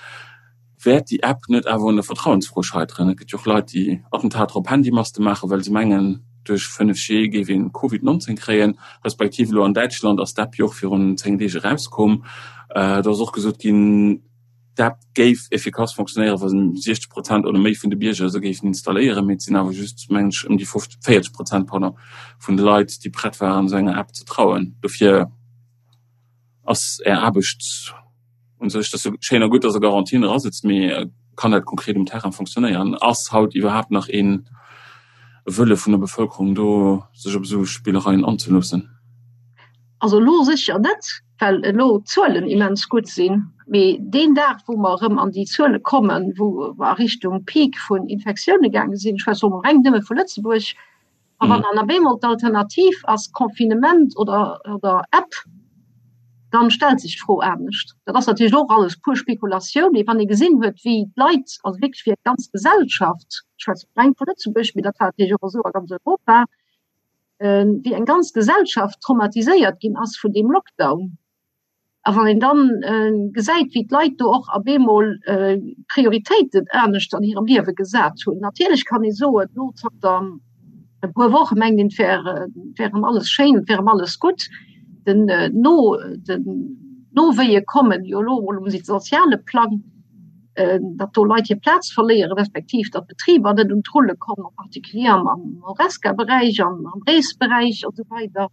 Wäert déi App net awer un der Vertrauensfro scheiteren? Et gëtt jo och Leit, déi Attentater op Handymaste maachen, well se mengen, duerch 5G géif een Covid 19 kréien. Respektiv elo an Däitschland ass d'App jo och virun 10 Deeg erauskomm. Do ass och gesot ginn, d'App géif effikass fonctionnéieren, wa 60 Prozent oder méi vun de Bierger se géifen installéieren. Mee et sinn awer just, mengen ech, ëm déi 40 Prozent, pardon, vun de Leit, déi prett waren, esou enger App ze trauen. Dofir ass Är Aarbecht un sech, dat ass jo schéin a gutt, dass Der Garantien erasetzt, mee kann dat konkret um Terrain fonctionnéieren? Ass haut iwwerhaapt nach ee Wëlle vun der Bevëlkerung do, sech op esou Spillereien anzeloossen? Also elo sécher net, well elo d'Zuelen immens gutt sinn. Mee deen Dag, wou mer erëm an déi Zuele kommen, wou mer a Richtung Peak vun Infektioune gaange sinn, ech schwätze elo mol reng nëmme vu Lëtzebuerg, A wann dann op eemol d'Alternativ ass Confinement oder, oder App, dann stellt sech d'Fro anescht. Dat ass natierlech och alles pur Spekulatioun, mee wann ee gesinn huet, wéi d'Leit, also wierklech wéi eng ganz Gesellschaft, ech schwätze reng vu Lëtzebuerg, mee dat war natierlech och esou a ganz Europa, wéi eng ganz Gesellschaft traumatiséiert ginn ass vun deem Lockdown, A wann een dann gesäit, wéi d'Leit do och op eemol Prioritéiten anescht an hirem Liewe gesat hunn. Natierlech kann ee soen, elo zanter e puer Woche mengt een, et wär, et wär erëm alles schéin, et wär erëm alles gutt. Den no, den Nowéie kommen jo elo emol um soziale Plang, datt do Leit hir Plaz verléieren, respektiv datt Betriber net un d'Rulle kommen, en particulier am Horesca-Beräich, am Reesberäich a sou weider.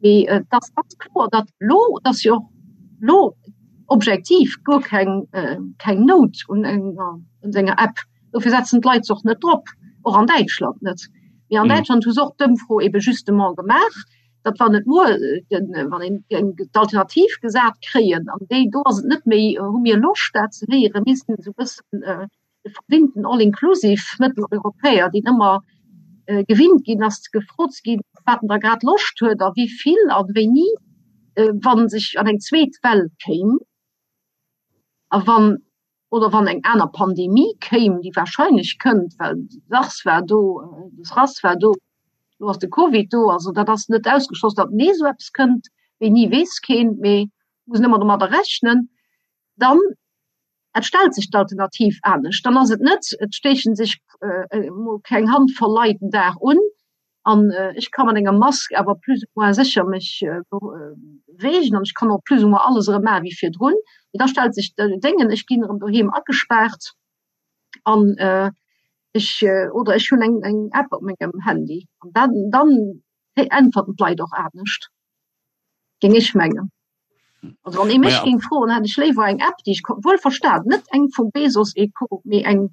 Mee et ass ganz kloer, datt elo, et ass jo och elo objektiv guer keng, keng Nout un enger, un enger App. Dofir setzen d'Leit se och net drop, och an Däitschland net. Mee an Däitschland hu se och d'Ëmfro ebe justement gemaach, datt wann et muer, wann een géing d'Alternativ gesat kréien, an déi do ass et net méi, hu mir Loscht dat ze héieren, mir sinn esou e bëssen, de verwinnten All-inclusive Mëtteleuropäer, deen ëmmer gewinnt ginn ass, gefrot ze ginn, wat en da grad Loscht huet a wéi vill a wéini, wa sech an eng zweet Well kéim a wann oder wann eng aner Pandemie kéim, déi wahrscheinlech kënnt, well de SARS war do, de SRAS war do, elo ass de Covid do, also dat ass net ausgeschloss, datt nees esou eppes kënnt. Wéini weess keen, mee muss een ëmmer domadder rechnen. Dann Et stellt sech d'Alternativ anescht. Dann ass et net, et stéiche sech emol keng Handvoll Leit den Dag un an ech ka mat enger Mask awer plus ou moins sécher mech beweegen an ech kann och plus ou moins alles erëm maache wéi virdrun. Mee da stellt sech Déngen, ech ginn erëm doheem agespaart an ech oder ech hunn eng eng App op mengem Handy an dann dann äntwerten d'Leit och anescht. Géing ech mengen. Also wann ee mech géing froen, hätt ech léiwer eng App, déi ech wuel verstan, net eng vum Bezos et Co, mee eng,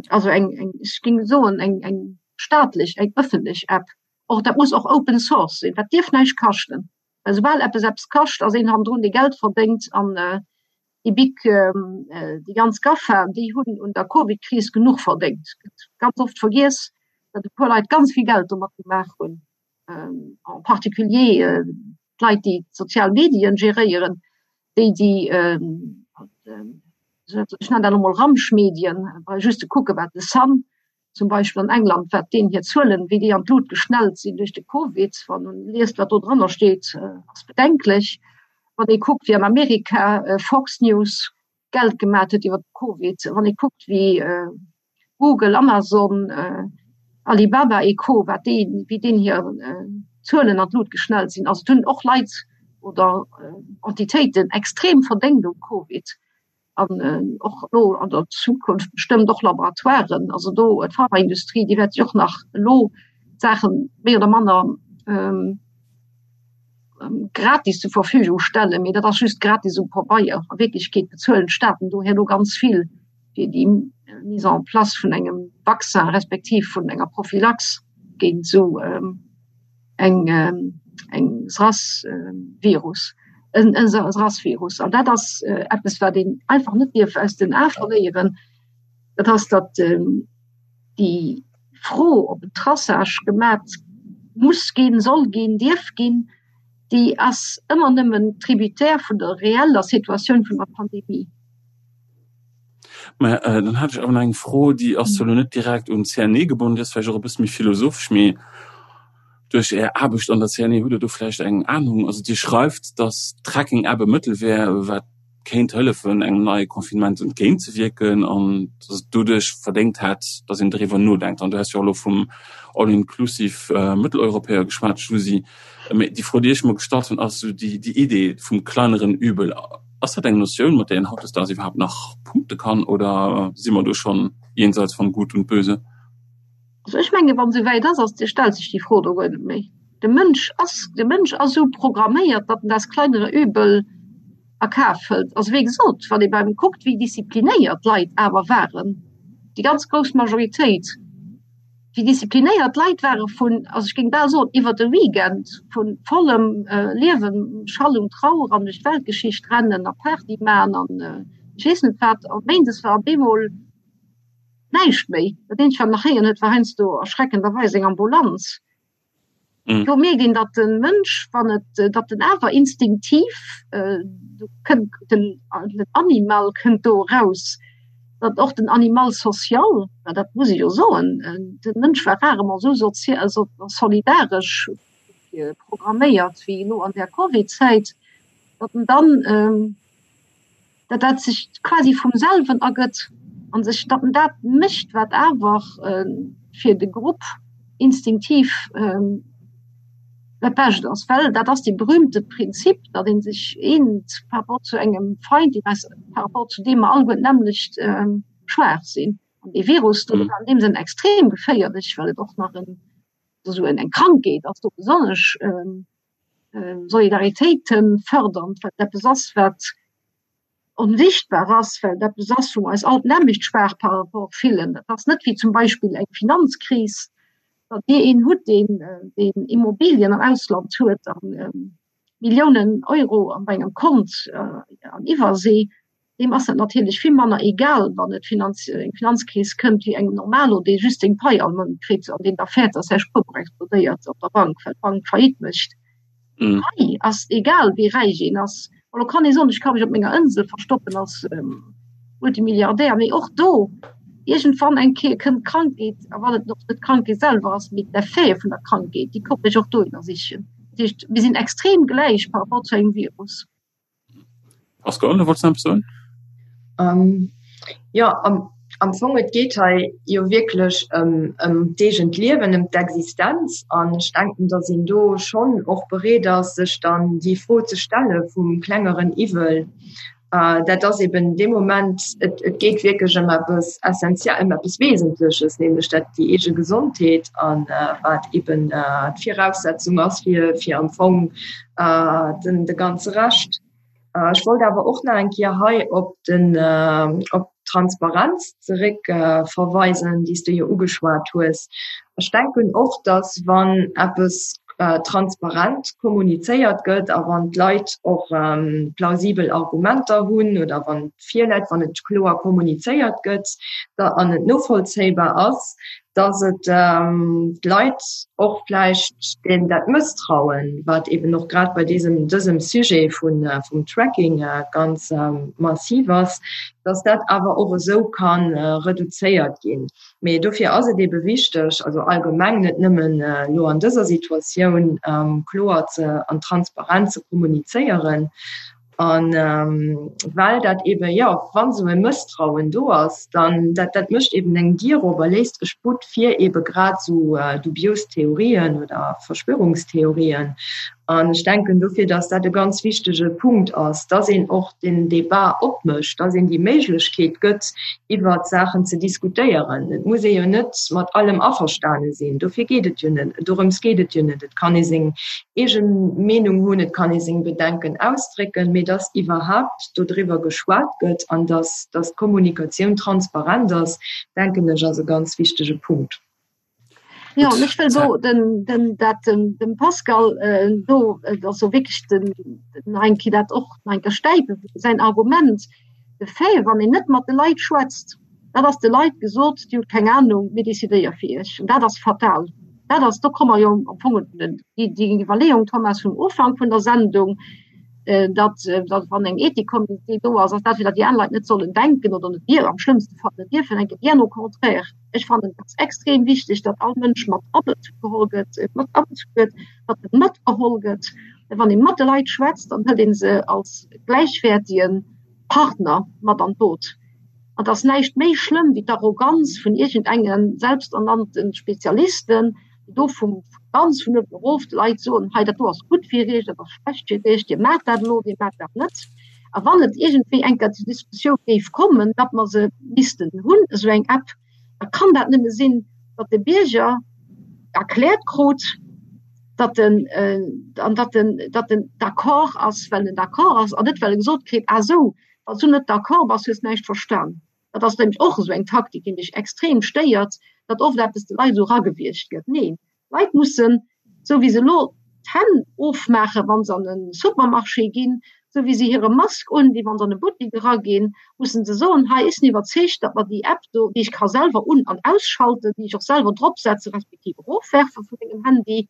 also eng, eng, ech géing soen, eng, eng staatlech, eng ëffentlech App. Och dat muss och Open Source sinn, dat dierf näischt kaschten. Well soubal eppes eppes kascht, ass een hannendrun, dee Geld verdéngt an déi big, déi ganz GAFA, déi hunn un der Covid-Kris genuch verdéngt. Gëtt ganz oft vergiess, datt e puer Leit ganz vill Geld domat gemaach hunn. en particulier d'Leit, déi d'sozial Medien geréieren, déi, déi, ech nennen dat elo mol Ramschmedien, brauch just ze kucken, wat de Sun zum Beispill an England, wat deenen hir Zuelen, wéi déi an d'Lut geschnellt sinn duerch de Covid, wann een liest, wat do dranner steet, ass bedenklech. Wann ee kuckt, wéi an Amerika Fox News Geld gemat huet iwwer de Covid, wann ee kuckt, wéi Google, Amazon, Alibaba et Co, wat déi, wéi deenen hir Zuelen an d'Lut geschnellt sinn. Also et hunn och Leit oder Entitéiten extrem verdéngt um Covid an och elo an der Zukunft bestëmmt och Laboratoiren. Also do d'Pharmaindustrie, déi wäert sech och nach elo d'Saache méi oder manner. gratis zur Verfügung stellen, mee dat ass just gratis um Pabeier. A Wierklechkeet bezuelen d'Staaten do herno ganz vill fir déi Mise en place vun engem Vaccin respektiv vun enger Prophylax géint esou eng eng SRAS-Virus, en SRAS-Virus. An dat ass eppes, wat een einfach net dierf aus den Ae verléieren, dat ass, datt déi Fro, ob en Traçage gemat muss ginn, soll ginn, dierf ginn, déi ass ëmmer nëmmen tributaire vun der reeller Situatioun vun der Pandemie. Mä dann hat ech awer nach eng Fro, déi ass zwar elo net direkt un d'CNE gebonnen, déi ass vläicht och e bësse méi philosophesch, mee duerch Är Aarbecht an der CNE hutt Der do vläicht eng Anung. Also Dir schreift, datt d'Tracking-App e Mëttel wär, wat kéint hëllefen, engem neie Confinement entgéintzewierken an datt et doduerch verdéngt hätt, datt een doriwwer nodenkt. An du has jo och elo vum All-inclusive Mëtteleuropäer geschwat, Giusi. Mee déi Fro, déi ech mer gestallt hunn, ass esou déi Idee vum kleineren Übel. Ass dat eng Notioun, mat där een hautdesdaags iwwerhaapt nach punkte kann oder si mer do schonn jenseits von Gut und Böse? Also ech menge wann esou wäit ass, ass stellt sech déi Fro do guer net méi. De Mënsch ass de Mënsch ass esou programméiert, datt en das kleinere Übel a Kaf hëlt. Also wéi gesot, wann ee beim kuckt, wéi disziplinéiert d'Leit awer waren, déi ganz grouss Majoritéit, wéi disziplinéiert d'Leit ware vun, also ech géing bal soen, iwwer de Weekend vu vollem Liewen, Schall und Trauer an duerch d'Weltgeschicht rennen a Party maachen an ech weess net wat, a méindes war op eemol näischt méi. Dat eenzegt, wat een nach héieren huet, war heiansdo erschreckenderweis eng Ambulanz. Do mierkt een, datt de Mënsch, wann et, datt en awer instinktiv, do kënnt den, den Animal kënnt do eraus, datt och den Animal social, well dat muss ech jo soen, de Mënsch war rarement esou sozi-, also solidaresch programméiert wéi elo an där Covid-Zäit, datt en dann, datt dat sech quasi vum selwen ergëtt an sech datt en dat mécht, wat awer fir de Grupp instinktiv dat Bescht ass. Well dat ass dee berühmte Prinzip, datt ee sech eent par rapport zu engem Feind, deen eis, par rapport zu deem mer alleguer d'nämmlecht schwaach sinn. An dee Virus do ass an deem Sënn extrem geféierlech, well et och nach en, esou eng Krankheet ass, do besonnesch Solidaritéit fërdernd, well et eppes ass, wat onsichtbar ass, well et eppes ass, wou mer eis all d'nämmlecht schwaach par rapport fillen. Et ass net wéi zum Beispill eng Finanzkris, datt Dir een hutt, deen deen Immobilien am Ausland huet a Milliounen Euro an engem Kont an Iwwersee, deem ass dat natierlech vill manner egal, wann et Finanz, eng Finanzkris kënnt, wéi engem Normalo, dee just seng Pai all Mount kritt an deen da fäert, dass säi Spuerbuch explodéiert op der Bank, well d'Bank Faillite mécht. Mm. Hei ass egal, wéi räich een ass. Elo kann ee soen, ech ka mech op menger Insel verstoppen als ähm, Multimilliardär, mee och do, iergendwann eng Kéier kënnt d'Krankheet, a wann et och net d'Krankheet selwer ass, mee d'Effete vun der Krankheet, déi kommen mech och dohinner sichen. Dat heescht, mir sinn extrem gläich par rapport zu engem Virus. Pascal, du wollts nach eppes soen? Ähm, jo, am, am Fong, et geet hei jo wierklech ëm, ëm d'eegent Liewen, ëm d'Existenz. An ech denken, datt een do schonn och bereet ass, sech dann déi Fro ze stelle vum klengeren Iwwel. Äh, dat ass eben dee Moment, et, et geet wierklech ëm eppes Essentie-, ëm eppes Wesentleches, nämlech dat déi eege Gesondheet an äh, wat eben äh, d'Viraussetzung ass fir, fir am Fong äh, den, de ganze Rescht. Äh, ech wollt awer och nach eng Kéier hei op den äh, op d'Transparenz zeréck äh, verweisen, déi s du jo ugeschwat hues. Ech denken och, dass wann eppes äh, transparent kommunizéiert gëtt a wann d'Leit och ähm, plausibel Argumenter hunn oder wann virläit, wann et kloer kommunizéiert gëtt da, an et novollzéibar ass, dass et d'Leit och vläicht deen dat Mësstrauen, wat eben och grad bei diesem, dësem Sujet vun, vum Tracking ganz massiv ass, dass dat awer och esou ka reduzéiert ginn. Mee dofir ass et ebe wichteg, also allgemeng, net nëmmen elo an dëser Situatioun, kloer ze an transparent ze kommunizéieren. An well dat eben, jo, wann esou e Mësstrauen do ass, dann dat, dat mécht eben eng Dier op a léisst e Sputt fir ebe grad esou dubios Theorien oder Verschwörungstheorien. An ech denken dofir, dass dat e ganz wichtege Punkt ass, dass een och den Débat opmécht, dass een déi Méiglechkeet gëtt, iwwert Saachen ze diskutéieren. Et muss ee jo net mat allem averstane sinn, dofir geet et jo net, dorëms geet et jo net. Et kann ee seng eege Meenung hunn, et kann ee seng Bedenken ausdrécken, mee dass iwwerhaapt dodriwwer geschwat gëtt an dass, dass d'Kommunikatioun transparent ass, denken ech, ass e ganz wichtege Punkt. Ja, an ech wëll do den, den, dat dem, dem Pascal äh, do äh, also wierklech den, den eng Kéier dat och nach eng Kéier stäipen, säin Argument, de Fait, wann een net mat de Leit schwätzt, dat ass de Leit gesot, Dir hutt keng Anung, mir decidéiere fir Iech. An dat ass fatal. Dat ass, do komme mer jo am Fong op den, déi, déi Iwwerleeung, Thomas, vum Ufank vun der Sendung, äh, datt, datt wann eng Ethikkommitee do ass, ass dat fir datt déi aner Leit net sollen denken oder net dierfen, am schlëmmste Fall net dierfen denken, bien au contraire. Ech fannen et ass extrem wichteg, datt all Mënsch mat abezu geholl gëtt, mat abezu gëtt, datt e matgeholl gëtt. Wann ee mat de Leit schwätzt, dann hëlt ee se als gläichwäertige Partner mat an d'Boot. An et ass näischt méi schlëmm wéi d'Arroganz vun iergendenge selbsternannte Spezialisten, déi do vu ganz vun uewen erof de Leit soen, hei dat do ass gutt fir iech, dat ass schlecht fir iech, dir maacht dat elo, dir maacht dat net. A wann et iergendwéi eng Kéier zur Diskussioun géif kommen, datt mer se missten hunn, esou eng App, da kann dat nëmme sinn, datt de Bierger erkläert krut, datt en, an datt en, datt en d'accord ass, well en d'accord ass, an net well e gesot kritt, Ah sou, wann s du net d'accord bass, hues näischt verstan. Dat ass nämlech och esou eng Taktik, déi mech extrem stéiert, datt oft eppes de Leit esou eragewiergt gëtt. Neen, D'Leit mussen, esou wéi se elo d'Hänn ofmaachen, wa se an e Supermarché ginn, esou wéi se hire Mask undinn, wa se an e Buttek eraginn, mussen se soen, hei, ech sinn iwwerzeegt, datt mer déi App do, déi ech ka selwer un an ausschalten, déi ech och selwer dropsetzen, respektiv erofwerfe vu mengem Handy,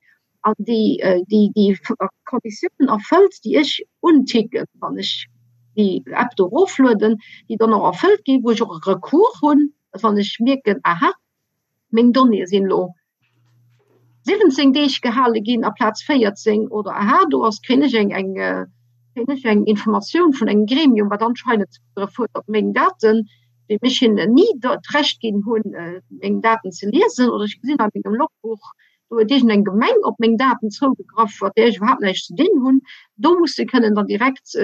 an déi déi Konditiounen erfëllt, déi ech unticken, wann ech déi App do eroflueden, déi dann och erfëllt ginn, wou ech och e Recours hunn, datt wann ech mierken, aha, meng Donnéeë sinn elo 17 Deeg gehale ginn aplaz 14 oder aha, do ass, kréien ech eng, eng, kréien ech eng Informatioun vun engem Gremium, wat anscheinend zougegraff huet op meng Daten, wéi ech hinnen ni d'Recht ginn hunn, meng Daten ze liesen oder ech gesinn a mengem Logbuch, do huet iergendeng Gemeng op meng Daten zougegraff, mat där ech iwwerhaapt näischt ze dinn hunn. Do muss se kënnen dann direkt,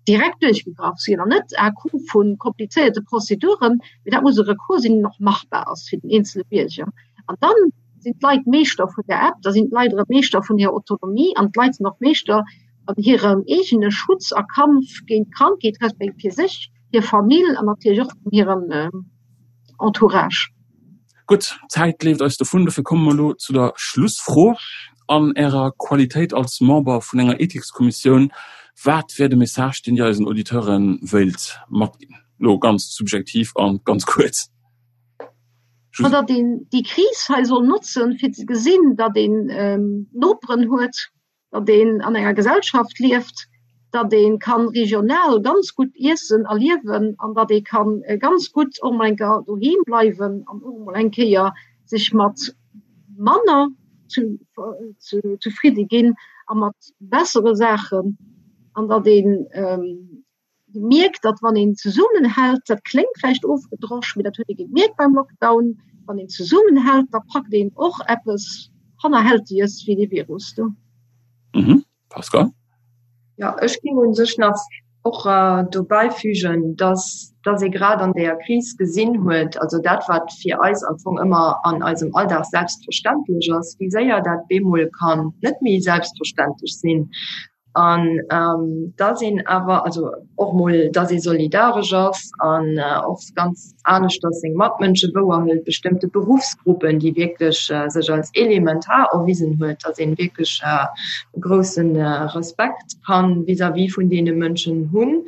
direkt duerchgegraff sinn an net à coup vu komplizéierte Prozeduren, mee dat muss e Recours sinn, deen och machbar ass fir den eenzele Bierger. An dann sinn d'Leit Meeschter vun der App, da sinn d'Leit erëm Meeschter vun hirer Autonomie an d'Leit sinn och Meeschter an hirem eegene Schutz a Kampf géint d'Krankheet, respektiv fir sech, hir Famill an natierlech och vun hirem Entourage. Gutt, d'Zäit leeft eis dovun, dofir komme mer elo zu der Schlussfro. An Ärer Qualitéit als Member vun enger Ethikskommissioun, wat wär de Message, deen Dir eisen Auditeure wéilt matginn? Elo ganz subjektiv a ganz kuerz. Ma datt een déi Kris hei soll notzen, fir ze gesinn, datt een Noperen huet, datt een an enger Gesellschaft lieft, datt ee kann regional ganz gutt iessen a liewen an datt ee kann ganz gutt och mol eng Kéier doheem bleiwen an och mol eng Kéier sech mat manner zefridde ginn a mat bessere Saachen an datt een mierkt, datt wann een zesummenhält, dat kléngt vläicht ofgedrosch, mee dat huet ee gemierkt beim Lockdown, wann een zesummenhält, da packt een och eppes Hannerhältiges wéi dee Virus do. Mhm. Pascal? Jo, ech géing u sech nach och dobäi fügen, datt datt ee grad an deeër Kris gesinn huet, also dat wat fir eis am Fong ëmmer an eisem Alldag selbstverständlech ass, wéi séier dat bemol kann net méi selbstverständlech sinn. An dass een awer, also och mol, dass ee solidaresch ass an och ganz aneschters seng Matmënsche wouerhëlt, bestëmmte Beruffsgruppen, déi wierklech sech als elementar erwisen huet, dass een wierklech e grousse Respekt kann vis-à-vis vun deene Mënschen hunn.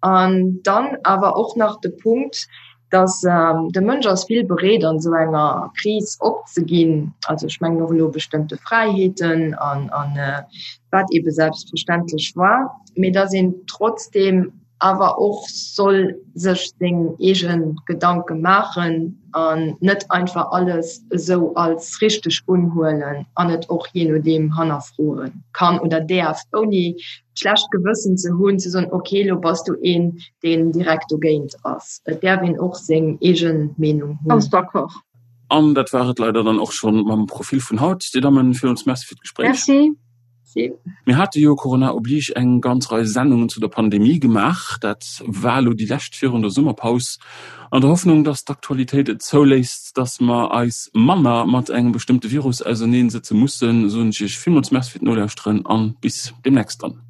An dann awer och nach de Punkt, dass de Mënsch ass vill bereet an esou enger Kris opzeginn, also ech mengen och elo bestëmmte Fräiheeten an an wat eebe selbstverständlech war, mee dass een trotzdeem awer och soll sech seng eege Gedanke maachen an net einfach alles esou als richteg unhuelen an et och jee nodeem hannerfroe kann oder däerf, ouni d'schlecht Gewëssen ze hunn, ze soen, ok, elo bass du een, deen direkt dogéint ass. Et däerf een och seng eege Meenung hunn. Ganz d'accord. An dat war et leider dann och schonn mam Profil vun haut. Dir Dammen, villmools Merci fir d'Gespréich. Merci. Merci. Mir hate jo, Corona oblige, eng ganz Rei Sendungen zu der Pandemie gemaach. Dat war elo déi lescht virun der Summerpaus. An der Hoffnung, dass d'Aktualitéit et zouléisst, dass mer eis manner mat engem bestëmmte Virus auserneen sëtze mussen, soen ech Iech villmools Merci fir d'Nolauschteren an bis deemnächst dann.